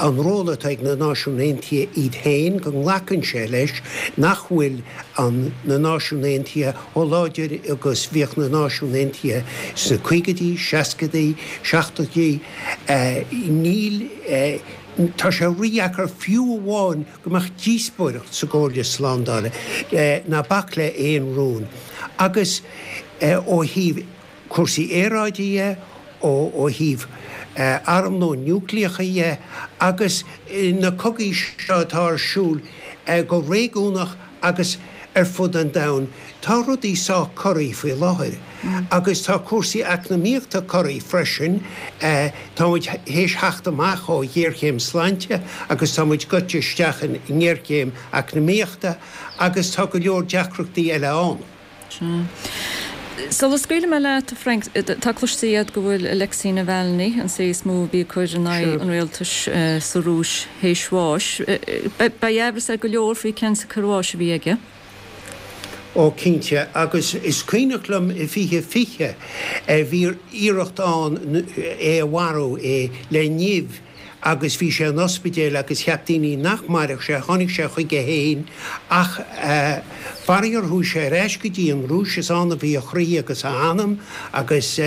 an ról atá ag na Náisiúin Aontaithe iad féin, go nglacann sé leis nach bhfuil an na Náisiúin Aontaithe chomh láidir agus bhíodh na Náisiúin Aontaithe sna caogaidí, seascaidí, seachtóidí. Níl. Tá sé rídheacair fiú amháin go mbeadh díospóireacht sa gComhairle Slándála, ná bac le aon rún. Agus ó thaobh cúrsaí aeráide dhe, ó thaobh armlón núicléacha dhe agus na cogaí seo atá ar siúl go réigiúnach agus ar fud an domhain, tá rudaí sách corraithe faoi láthair. Agus tá cúrsaí eacnamaíochta corraithe freisin. Tá muid théis theacht amach ó ghéarchéim sláinte agus tá muid goite isteach i ngéarchéim eacnamaíochta agus tá go leor deacrachtaí eile ann. Sea. Sula scaoilfidh mé leat, a Frank, tá cloiste agat go bhfuil Alexei Navalny, an té is mó a bhí ag cur in aghaidh an rialtais sa Rúis, théis bháis. Beidh aimhreas ar go leor faoi cén tsiocair bháis a bhí aige. Ó, cinnte. Agus is cuimhneach liom i 2020, bhí iarracht ann é a mharú, é le nimh. agus bhí sé in ospidéal agus cheap daoine nach mairfeadh sé, tháinig sé chuige féin ach faraor chuaigh sé ar ais go dtí an Rúis, is ann a bhí a chroí agus a anam agus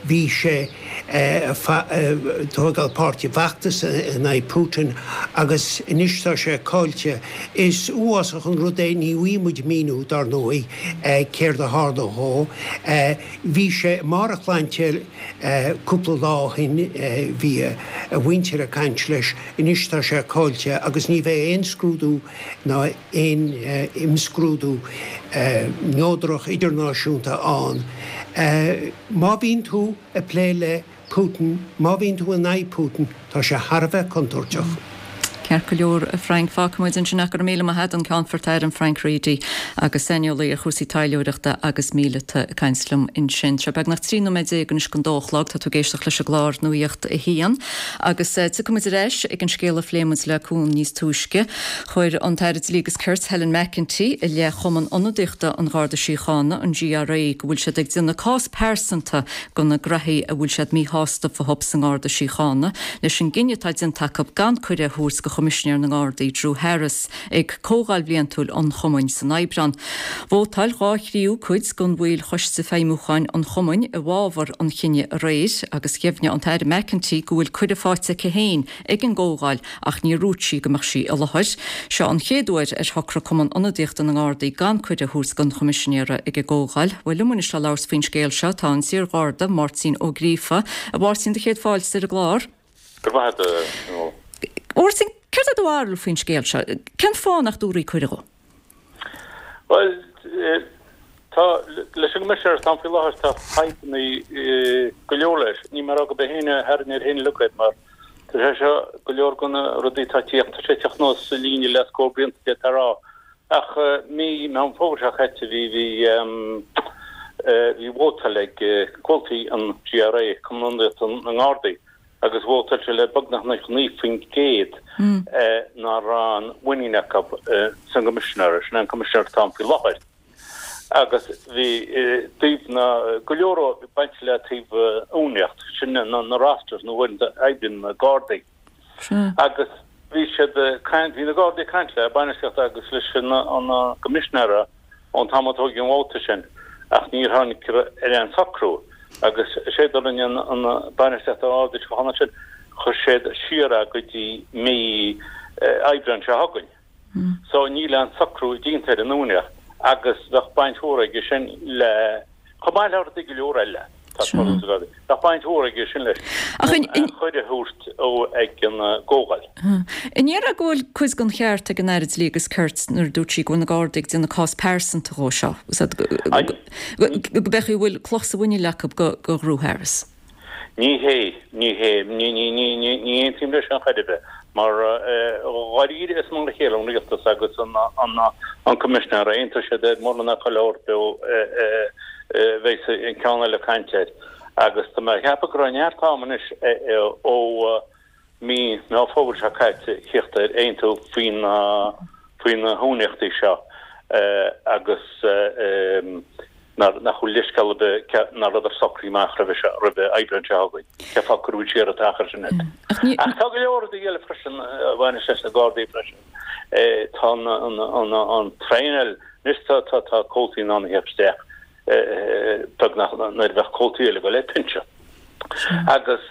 bhí sé ag tógáil páirt i bhfeachtas in aghaidh Putin agus anois tá sé caillte. Is uafásach an rud é, ní bhfaighidh muid míniú dar ndóigh céard a tharla dhó. Bhí sé i mbarr a shláinte cúpla lá ó shin, bhí a mhuintir ag caint leis, anois tá sé caillte agus ní bheidh aon scrúdú ná aon imscrúdú neodrach idirnáisiúnta ann. Má bhíonn tú ag plé le Putin, má bhíonn tú in aghaidh Putin, tá sé thar a bheith contúirteach. Ceart go leor, a Frank. Fágfaidh muid ansin é. Go raibh míle maith agat, an Ceannfort Airm Frank Reidy agus saineolaí ar chúrsaí taidhleoireachta agus míleata ag caint liom ansin. Tá sé beagnach 13 nóiméad anois don dó a chlog. Tá tú ag éisteacht leis an gclár Nuacht a hAon. Agus tiocfaidh muid ar ais ag an scéal a phléigh muid le Cuan níos túisce. Chuir an tAire Dlí agus Cirt Helen McEntee i leith Chumann Ionadaíochta an Gharda Síochána, an GRA, go bhfuil siad ag déanamh cás pearsanta de na graithí a bhfuil siad míshásta fúthu sa nGarda Síochána leis an gcinneadh atá déanta acu gan cuireadh a thabhairt do Choimisinéir na nGardaí Drew Harris ag comhdháil bhliantúil an chumainn san Aibreán. Vótáil dhá thríú cuid de bhaill Choiste Feidhmiúcháin an chumainn i bhfabhar an chinnidh aréir agus dheimhnigh an tAire McEntee go bhfuil cuireadh faighte aici féin ag an gcomhdháil ach níor dhúirt sí go mbeadh sí i láthair. Seo an chéad uair ar shocraigh Cumann Ionadaíochta na nGardaí gan cuireadh a thabhairt don Choimisinéara ag an gcomhdháil. Bhuel, liom anois le labhairt faoin scéal seo tá an t-iar-Gharda, Máirtín Ó Gríofa. A Mháirtín, do chéad fáilte ar an gclár. Go raibh maith agat, a Nuala. A Mháirtín, céard é do bharúil faoin scéal seo? Cén fáth nach dtabharfaí cuireadh dhó? Bhuel, tá, leis an gCoimisinéir atá ann faoi láthair, tá fadhbanna go leor leis. Níl mé ag rá gurb é féin a tharraing air féin uilig iad mar tá sé seo, go leor de na rudaí atá ag tíocht, tá sé ag tíocht anuas sa líne le scór blianta d'fhéadfá a rá. Ach mí Meán Fómhair seo caite bhí, bhí, bhí vótáil ag comhaltaí an GRA, Cumann Ionadaíochta na nGardaí, agus vótáil siad le beagnach 99% nach raibh aon mhuinín acu san gCoimisinéir, sin é an Coimisinéir atá ann faoi láthair. Agus bhí taobh na, go leor bainte le taobh uainíocht, sin na rosters na huaireanta a oibríonn na Gardaí. Agus bhí siad ag caint, bhí na Gardaí ag caint le bainistíocht agus leis an gCoimisinéir ón t-am a tógadh an vóta sin ach níor tháinig ar aon socrú agus is é a rinne an bainistíocht an Gharda Síochána ansin, chuir siad siar é go dtí mí Aibreáin seo chugainn. So níl aon socrú déanta ar an uainíocht agus bheadh baint mhór aige sin le, chomh maith le rudaí go leor eile, tá tarlú sa Ghardaí, bheadh baint mhór aige sin leis an cuireadh a thabhairt dó ag an gcomhdháil. An ndéarfá go bhfuil cuid den cheart ag an Aire Dlí agus Cirt nuair a dúirt sí go bhfuil na Gardaí ag déanamh cás pearsanta dhó seo, go b'fhéidir go bhfuil cloch sa mhuineál acu do Dhrew Harris? Ní hé, ní hé, ní, ní, ní, ní, ní aontaím leis sin chor ar bith, mar dháiríre is mar a chéile an rialtas agus an, an, an Coimisinéir, aontóidh siad ar mórán ná chuile shórt a bheas an ceann eile ag caint air. Agus tá mé ag ceapadh go raibh neart am anois ó mí Meán Fómhair seo caite thíocht ar aontú faoi na, faoi na huainíochtaí seo agus nach bhfuil leithscéal ar bith nach rabhadar socraithe amach roimhe seo, roimhe Aibreán seo chugainn. Cén fáth cuireadh siar an t-achar sin air? Ach tá go leor rudaí eile freisin a bhaineas leis na Gardaí freisin. Tá an traenáil, anois tá tá comhaltaí in ann a theacht isteach beagnach nuair a bheadh comhaltaí eile ag dul ar pinsean. Agus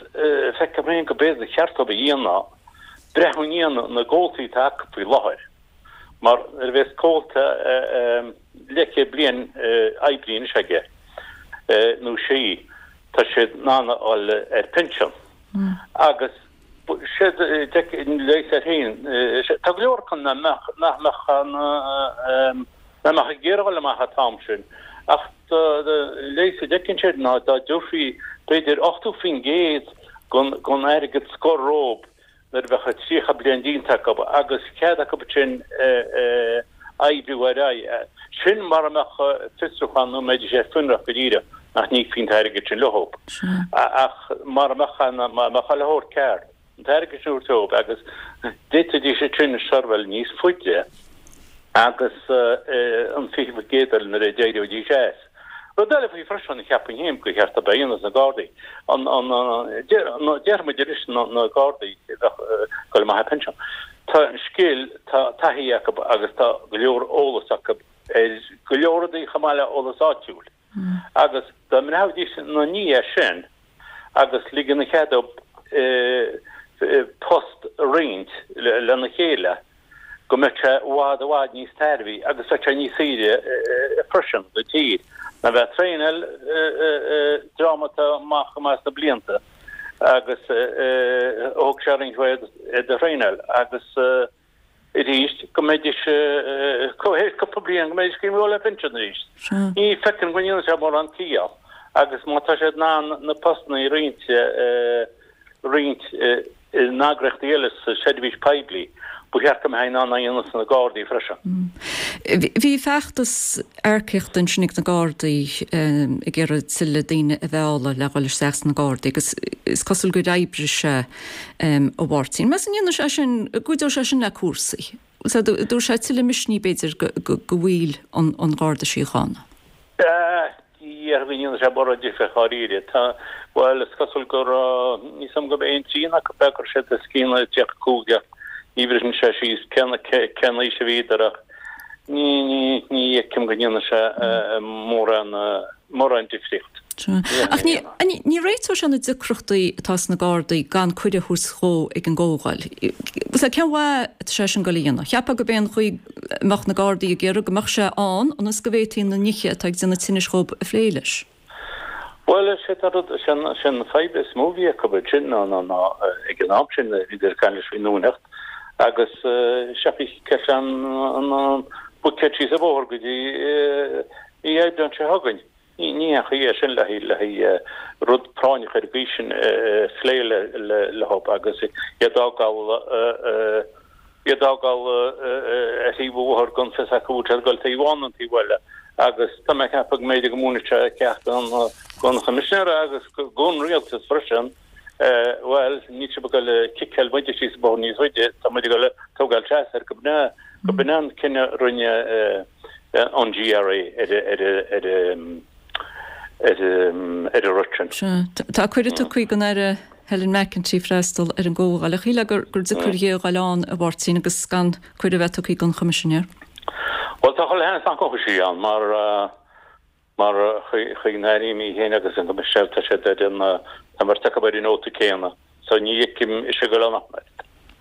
feicim féin go b'fhéidir cheart dóibh a dhéanamh. Breathnú i ndiaidh na gcomhaltaí atá acu faoi láthair, mar nuair a bheas comhalta leathchéad bliain oibrithe anois aige nó sí, tá siad in ann a dhul ar pinsean. Agus siad leigheas air féin, tá go leor acu nach mbeadh nach mbeadh ag iarraidh dhul amach an t-am sin, ach leigheas a d'fheiceann siad ná dá dtabharfaí b'fhéidir 80% den airgead scoir dhóibh nuair a bheadh 30 bliain déanta acu agus cead acu ansin oibriú ar aghaidh. Sin mara mbeadh fiosrúchán nó mbeidís ar fionraí go díreach nach n-íocfaí an t-airgead sin leo. Ach mara mbeadh an, mara mbeadh a leithéid ceart, an t-airgead sin a thabhairt dóibh agus d'fhéadfaidís ansin seirbheáil níos faide agus an 20% eile nuair a d'éireoidís as. Rud eile faoi freisin, cheapfainn féin gur cheart dóibh a dhéanamh sna Gardaí, an, an, déarfaidh muid arís na Gardaí a bheadh ag dul amach ar pinsean. Tá scil, tá taithí acu agus tá go leor eolas acu ar go leor rudaí chomh maith le eolas áitiúil. Agus dá mbreathnaídís ina ndiaidh sin agus ligean an chead dóibh post a roinnt lena chéile, go mbeadh sé i bhfad i bhfad níos tairbhí agus bheadh sé níos saoire freisin don tír ná bheith ag traenáil dream atá amach chomh maith sna blianta agus thóg sé roinnt mhaith iad a thraenáil agus arís go mbeidís théis cúpla bliain go mbeidís ag dul ar pinsean arís. Ní feicim go ndéanann sé mórán ciall agus má tá siad in ann na postanna a roinnt roinnt in eagraíochtaí eile sa seirbhís poiblí, ba cheart go mbeifí in ann é a dhéanamh sna Gardaí freisin. Bhí feachtas earcaíochta ansin ag na Gardaí ag iarraidh tuilleadh daoine a mhealladh le dhul isteach sna Gardaí agus is cosúil gur oibrigh sé, a Mháirtín. Meas tú an ndéanfaidh sé sin, an gcuideoidh sé sin le cúrsaí? Dtabharfaidh sé tuilleadh misnigh b'fhéidir do bhaill an Gharda Síochána? Ní déarfainn go ndéanfaidh sé mórán difir dháiríre. Tá, bhuel, is cosúil go raibh, níl a fhios agam gurb aon trian acu go raibh siad os cionn 35 ach ní bhriseann sé síos cén cén aois a bhíodar ach ní ní ní fheicim go ndéanfaidh sé mórán mórán difríocht. Ach ní ní réiteoidh sé na deacrachtaí atá sna Gardaí gan cuireadh a thabhairt dhó ag an gcomhdháil. Cén mhaith atá sé sin ag dul a dhéanamh? Cheapfá gurb é an chaoi mbeadh na Gardaí ag iarraidh go mbeadh sé ann ionas go bhféadfaí na nithe atá ag déanamh tinnis dhób a phlé leis. Bhuel, is é an rud, is é an fadhb is mó a bhí acu ansin ná, ná, ná ag an am sin bhíodar ag caint leis faoin Luaineacht agus seachas ceist an, an, an buicéad síos an bóthar go dtí mí Aibreáin seo chugainn. Ní haon chaoi é sin le haghaidh rud práinneach ar an gcaoi sin a phlé leo agus iad a fhágáil iad a fhágáil ar thaobh an bhóthair gan fios acu an bhfuil siad ag dul taobh amháin nó an taobh eile agus tá mé ag ceapadh go mb'fhéidir go múinfeadh sé ceacht don Choimisinéir agus don Rialtas freisin bhuel níl sibh ag dul ag ciceáil muide síos an bóthar níos faide tá muid ag dul ag tógáil seas air go b'in é an cinneadh a rinne an GRA ar an rud sin. Sea. Tá cuireadh tugtha don Aire Helen McEntee freastal ar an gcomhdháil. Ach shílfeá gur deacair di a dhul ann, a Mháirtín, agus gan cuireadh a bheith tugtha don Choimisinéir. Bhuel, tá chuile sheans nach ngabhfaidh sí ann mar mar chaoi n-airím í féin agus an Coimisinéir tá siad ar an tá an bheirt acu ar an nóta céanna. So ní fheicim ise ag dul ann ach oiread.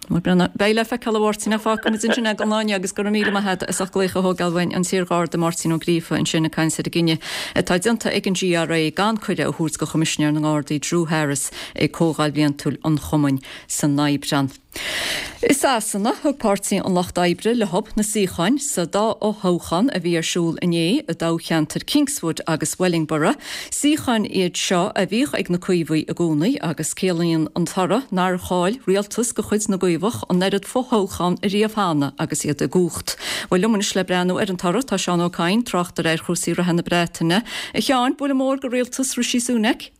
Bhuel, beidh le feiceáil a Mháirtín ach fágfaimid ansin é don lá inniu agus go raibh míle maith agat as ucht glaoch a thógáil uainn, an t-iarGharda Máirtín Ó Gríofa ansin ag caint ar an gcinneadh atá déanta ag an GRA gan cuireadh a thabhairt do Choimisinéir na nGardaí Drew Harris ag Comhdháil Bhliantúil an Chumainn san Aibreán. I Sasana, thug Páirtí an Lucht Oibre leo na suíocháin sa dá fhothoghchán a bhí ar siúl inné i dtoghcheantair Kingswood agus Wellingborough. Suíocháin iad seo a bhíodh ag na Caomhaigh i gcónaí agus ciallaíonn an toradh nár chaill rialtas de chuid na gCaomhach an oiread fothoghchán ariamh cheana agus iad i gcumhacht. Bhuel, liom anois le breathnú ar an toradh tá Seán Ó Cadhain, tráchtaire ar chúrsaí reatha na Breataine. A Sheáin, buille mór do rialtas Rishi Sunak.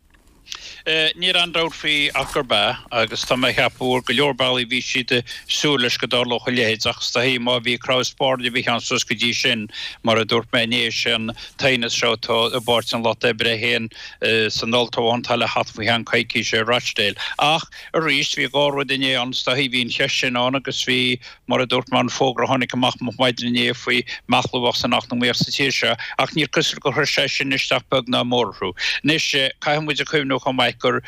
Níl aon dabht faoi ach gurb ea, agus tá mé a cheapadh ar go leor bealaí bhí siad ag súil leis go dtarlódh a leithéid ach is dóichí má bhí crann is spairne a bhí ann suas go dtí sin, mar a dúirt mé inné, is é an t-aighneas seo atá i bPáirtí an Lucht Oibre féin san olltoghchán atá le theacht faoi cheann coicíse i Rochdale. Ach arís, bhí dhá rud inné ann, is dóichí, bhí an cheist sin ann agus bhí Mar a dúirt mé, an fógra a tháinig amach moch maidin inné faoi mheathlú a bheadh san eacnamaíocht sa tír seo, ach níor cosúil gur chuir sé sin isteach beag ná mór orthu. Anois, caithfidh muid a cuimhneamh. inniu chomh maith gur,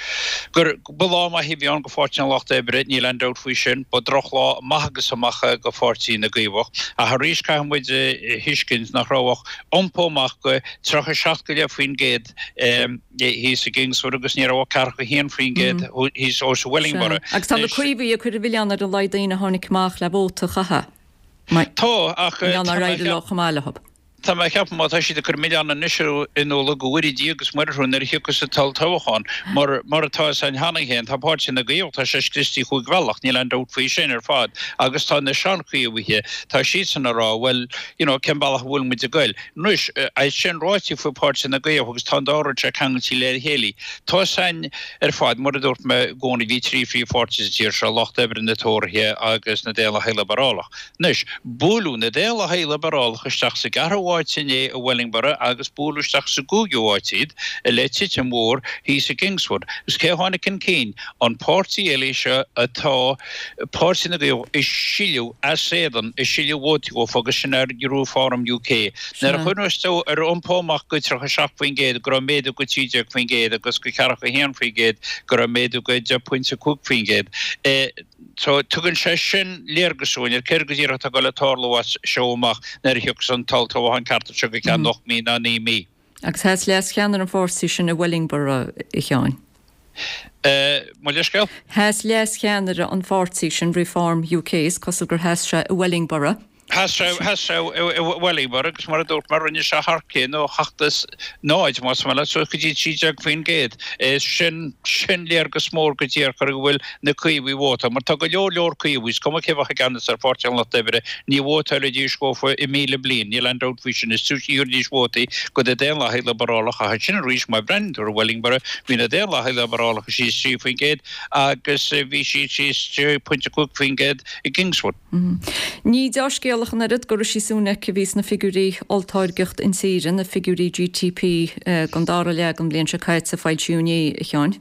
gur, ba lá maith a bhí ann go Pháirtí an Lucht Oibre, níl aon dabht faoi sin. Ba drochlá amach agus amach é go Pháirtí na gCaomhach. Ach arís caithfidh muid a thuiscint nach raibh ach iompó amach go 37 go leith% thíos i gKingswood agus ní raibh ach 41% thíos i Wellingborough. Agus tá na Caomhaigh ag cur an mhilleáin ar a laghad daoine a tháinig amach le vóta a chaitheamh. Tá, ach tá mé ag leo chomh maith leo. Tá mé ag ceapadh má tá siad ag cur milleán anois in ualach go bhfóire Dia agus Muire orthu nuair a thiocfas an t-olltoghchán. Mar, mar atá a fhios againn cheana féin, tá Páirtí na gCaomhach, tá sé scriosta chúig bhealach, níl aon dabht faoi sin ar fad. Agus tá na seanchaomhaithe, tá siadsan ag rá, bhuel, you know, cén bealach a bhfuil muid ag goil? Anois, é sin ráite faoi Páirtí na gCaomhach agus tá an dá rud seo ceangailte le chéile. Tá a fhios againn ar fad, mar a dúirt mé i gcónaí, bhí trí phríomhpháirtí sa tír seo, Lucht Oibre, na Tóraithe agus na Daonlathaigh Liobrálach. Anois, buaileadh na Daonlathaigh Liobarálacha isteach sa gceathrú háit inné i Wellingborough agus buaileadh isteach sa gcúigiú háit iad le titim mhór thíos i gKingswood. Agus cé a tháinig chun cinn? An páirtí eile seo atá, Páirtí na gCaomhach, ag sileadh as éadan, ag sileadh vótaí dhófa agus sin ar Reform UK. Nuair a chuimhneos tú ar iompó amach go 37% go raibh méadú go 13% agus go 41% go raibh méadú go 10.5%. So, tugann sé sin léargas dúinn ar céard go díreach atá ag dul a tarlú as seo amach nuair a thiocfas an t-olltoghchán ceart anseo go ceann 8 mí ná 9 mí. Agus sheas leas-cheannaire an pháirtí sin i Wellingborough, a Sheáin. Mo leithscéal? Sheas leas-cheannaire an pháirtí sin, Reform UK, is cosúil gur sheas sé i Wellingborough. Sheas sé, sheas sé i Wellingborough agus mar a dúirt mé rinne sé thar cionn ó 7 is 0, más maith leat, suas go dtí 13%. Sin, sin léargas mór go díreach ar go bhfuil na Caomhaigh ag vótáil, mar tá go leor leor Caomhaigh, is cuma cé bheadh i gceannas ar Pháirtí an Lucht Oibre, ní vótálfaidís dhófa i míle bliain, níl aon dabht faoi sin, is túisce a thabharfaidís vótaí go na Daonlathaigh Liobarálacha, ach ansin arís, má bhreathnaíonn tú ar Wellingborough, bhí na Daonlathaigh Liobarálacha síos 3% agus bhí siad síos 6.5% i gKingswood. Ní deá-scéal ach an oiread do Rishi Sunak a bhí sna figiúirí olltáirgeacht intíre, na figiúirí GTP don dara leath den bhliain seo caite a foilsíodh inné, a Sheáin.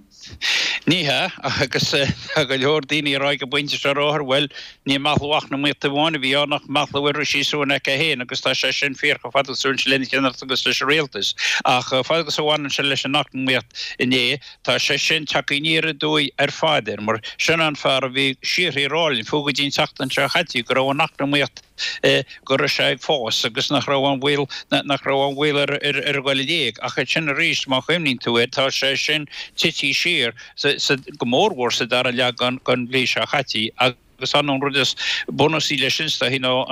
Ní hea, agus tá go leor daoine ag rá ag an bpointe seo ar láthair, bhuel, ní meathlú eacnamaíochta amháin a bhí ann ach meathlú ar Rishi Sunak é féin agus tá sé sin fíor chomh fada agus a bhaineann sé lena cheannaireacht agus leis an rialtas. Ach chomh fada agus a bhaineann sé leis an eacnamaíocht inné, Tá sé sin tagtha aniar aduaidh ar fad air, mar sin an fear a bhí síoraí ag rá linn, fiú go dtí an tseachtain seo chaite, go raibh an eacnamaíocht, go raibh sé ag fás agus nach raibh aon bhaol, nach raibh aon bhaol ar a dhul i léig. Ach ansin arís, má chuimhníonn tú air, tá sé sin tití siar, go mórmhór sa dara leath den bhliain seo chaite. Agus an rud is bunúsaí leis sin is dóichí ná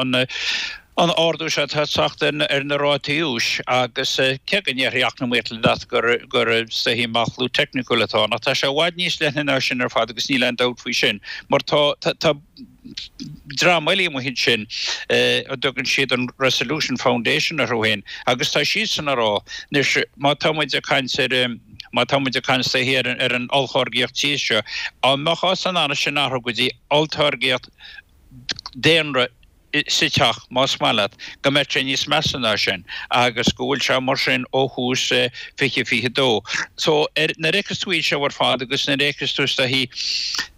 an ardú seo atá ag teacht ar na rátaí úis agus cé go ndéarfaidh eacnamaíocht leat gur gur is dóichí meathlú teicniúil atá ann ach tá sé i bhfad níos leithne ná sin ar fad agus níl aon dabht faoi sin mar tá tá dream eile amuigh ansin a dtugann siad an Resolution Foundation orthu féin agus tá siadsan ag rá anois má tá muid ag caint ar Má tá muid ag caint is dóichí ar an olltáirgíocht tíre seo, dá mbeifeá in ann sin a athrú go dtí olltáirgíocht daonra sa teach, más maith leat, go mbeadh sé níos measa ná sin agus go bhfuil sé mar sin ó thús 2022. So, nuair a fheiceas tú iad seo ar fad agus nuair a fheiceas tú is dóichí,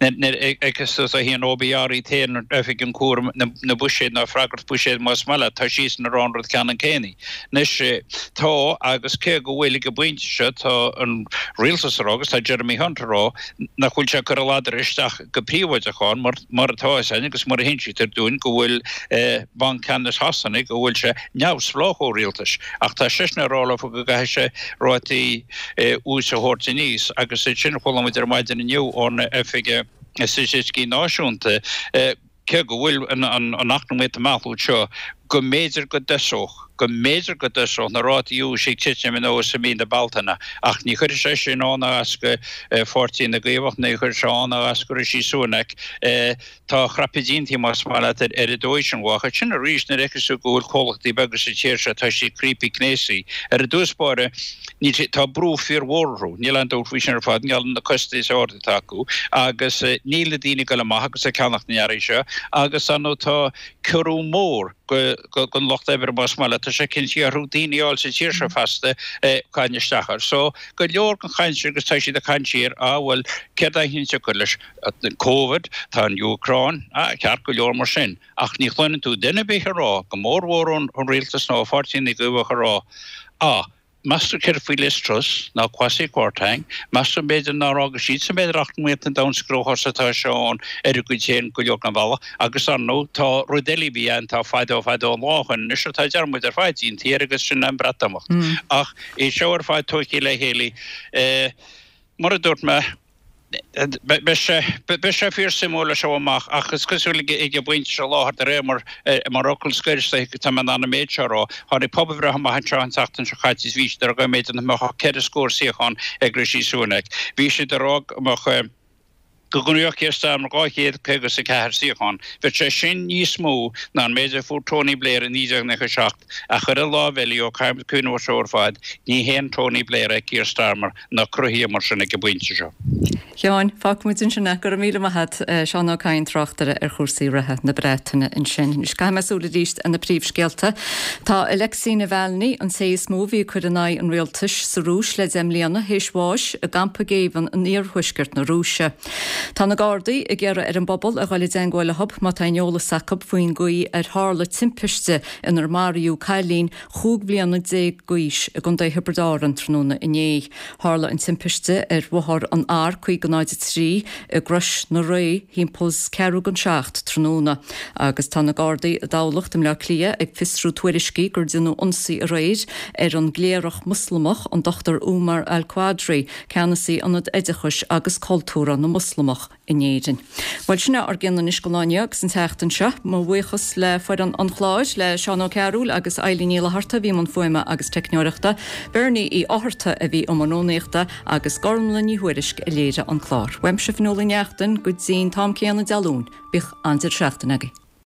nuair a fheiceas tú is dóichí an OBR iad féin, Oifig an Chúraim na Buiséad nó Freagracht Buiséid más maith leat, tá siadsan ag rá an rud ceannann céanna. Anois, tá, agus cé go bhfuil ag an bpointe seo, tá an rialtas ag rá, agus tá Jeremy Hunt ag rá, nach bhfuil sé ag cur a ladar isteach go príobháideach ann, mar, mar atá a fhios againn agus mar a hinsítear dúinn go bhfuil Banc Ceannais Shasana, go bhfuil sé neamhspleách ó rialtas. Ach tá seisean ag rá leofa go gcaithfidh sé rátaí úis a thabhairt aníos, agus ansin chuala muid ar maidin inniu ón Oifig Staitisticí Náisiúnta, cé go bhfuil an eacnamaíocht ag meathlú seo, go mb'fhéidir go dtosódh, go mb'fhéidir go dtosódh na rátaí úis ag titim anuas i mí na Bealtaine. Ach ní chuirfidh sé sin ann ná as go Pháirtí na gCaomhach, ní chuirfidh sé ann ná as go Rishi Sunak. Tá a chraipe déanta, más maith leat, ar an dóigh sin. Ach ansin arís, nuair a fheiceas tú go bhfuil comhlachtaí beaga sa tír seo, tá siad criopaí cnéasaí. Ar dtús báire, níl siad, tá brú fíormhór orthu, níl aon dabht faoi sin ar fad, i ngeall ar na costais arda atá acu agus níl na daoine ag dul amach agus ag ceannacht na n-earraí seo agus ar ndóigh tá ciorrú mór don lucht oibre más maith leat, tá sé cinntithe orthu daoine a fháil sa tír seo feasta caint isteach air. So go leor den chaint sin agus tá siad ag caint siar, ah bhuel céard é an tsiocair leis? Covid, tá an Úcráin, ah ceart go leor mar sin ach ní chluineann tú duine ar bith ag rá, go mórmhór ón rialtas nó ó Pháirtí na gCaomhach ag rá, ah. Meas tú céard faoi Liz Truss, ná Kwasi Kwarteng, meas tú b'fhéidir nár fhága siadsan b'fhéidir eacnamaíocht an domhain sa gcruachás atá sé ann ar a gcuid féin go leor den bhealach agus ar ndóigh tá rud eile a bhí ann tá fadó fadó an lá ó shoin anois atá dearmad ar fad déanta air agus sin an Breatimeacht. Ach é seo ar fad tógtha le chéile mar a dúirt mé, Beidh sé, beidh sé fíor suimiúil as seo amach ach is cosúil ag an bpointe seo i láthair de réir mar, mar fhocal scoir is dóiche tá mé in ann an méid seo a rá, tháinig pobalbhreith amach anseo an tseachtain seo caite is bhí siad ag rá go mb'fhéidir nach mbeadh ach ceithre scór suíochán ag Rishi Sunak. Bhí siad ag rá go mbeadh, go ngnóthódh Keir Starmer 254 suíochán. Bheadh sé sin níos mó ná an méid a fuair Tony Blair i 1997 ach ar an lámh eile, ó caithfimid cuimhneamh air seo ar fad, ní haon Tony Blair é Keir Starmer. ná cruthaithe mar sin ag an bpointe seo. A Sheáin, fágfaimid ansin é. Go raibh míle maith agat. Seán Ó Cadhain, tráchtaire ar chúrsaí reatha na Breataine ansin. Anois caithfidh mé súil arís ar na príomhscéalta. Tá Alexei Navalny, an té is mó a bhí ag cur in aghaidh an rialtais sa Rúis le deich mbliana, théis bháis i gcampa géibhinn in iarthuaisceart na Rúise. Tá na Gardaí ag iarraidh ar an bpobal a dhul i dteangmháil leo má tá aon eolas acu faoin gcaoi ar tharla timpiste inar maraíodh cailín 15 bliana d'aois i gContae Thiobraid Árann tráthnóna inné. Tharla an timpiste ar bhóthar an R503 i gCrois na Ré thimpeall ceathrú don seacht tráthnóna agus tá na Gardaí i dTamhlacht i mBleá Cliath ag fiosrú tuairiscí gur déanadh ionsaí aréir ar an gcléireach Moslamach an Dr Umar Al-Qadri, ceannasaí Ionad Oideachais agus Cultúrtha na Moslamach. in Éirinn. Bhuel, sin é ár gcion anois don lá inniu agus an tseachtain seo. Mo bhuíochas le foireann an chláir, le Seán Ó Cearúil agus Eilín Ní Fhlatharta a bhí i mbun fuaime agus teicneoireachta, Bernie Uí Fhátharta a bhí i mbun rúnaíochta agus Gormlaith Ní Thuairisg a léirigh an clár. Uaimse Fionnuala Ní Neachtain go dtí'n t-am céanna Dé Luain, bíodh an-deireadh seachtaine agaibh.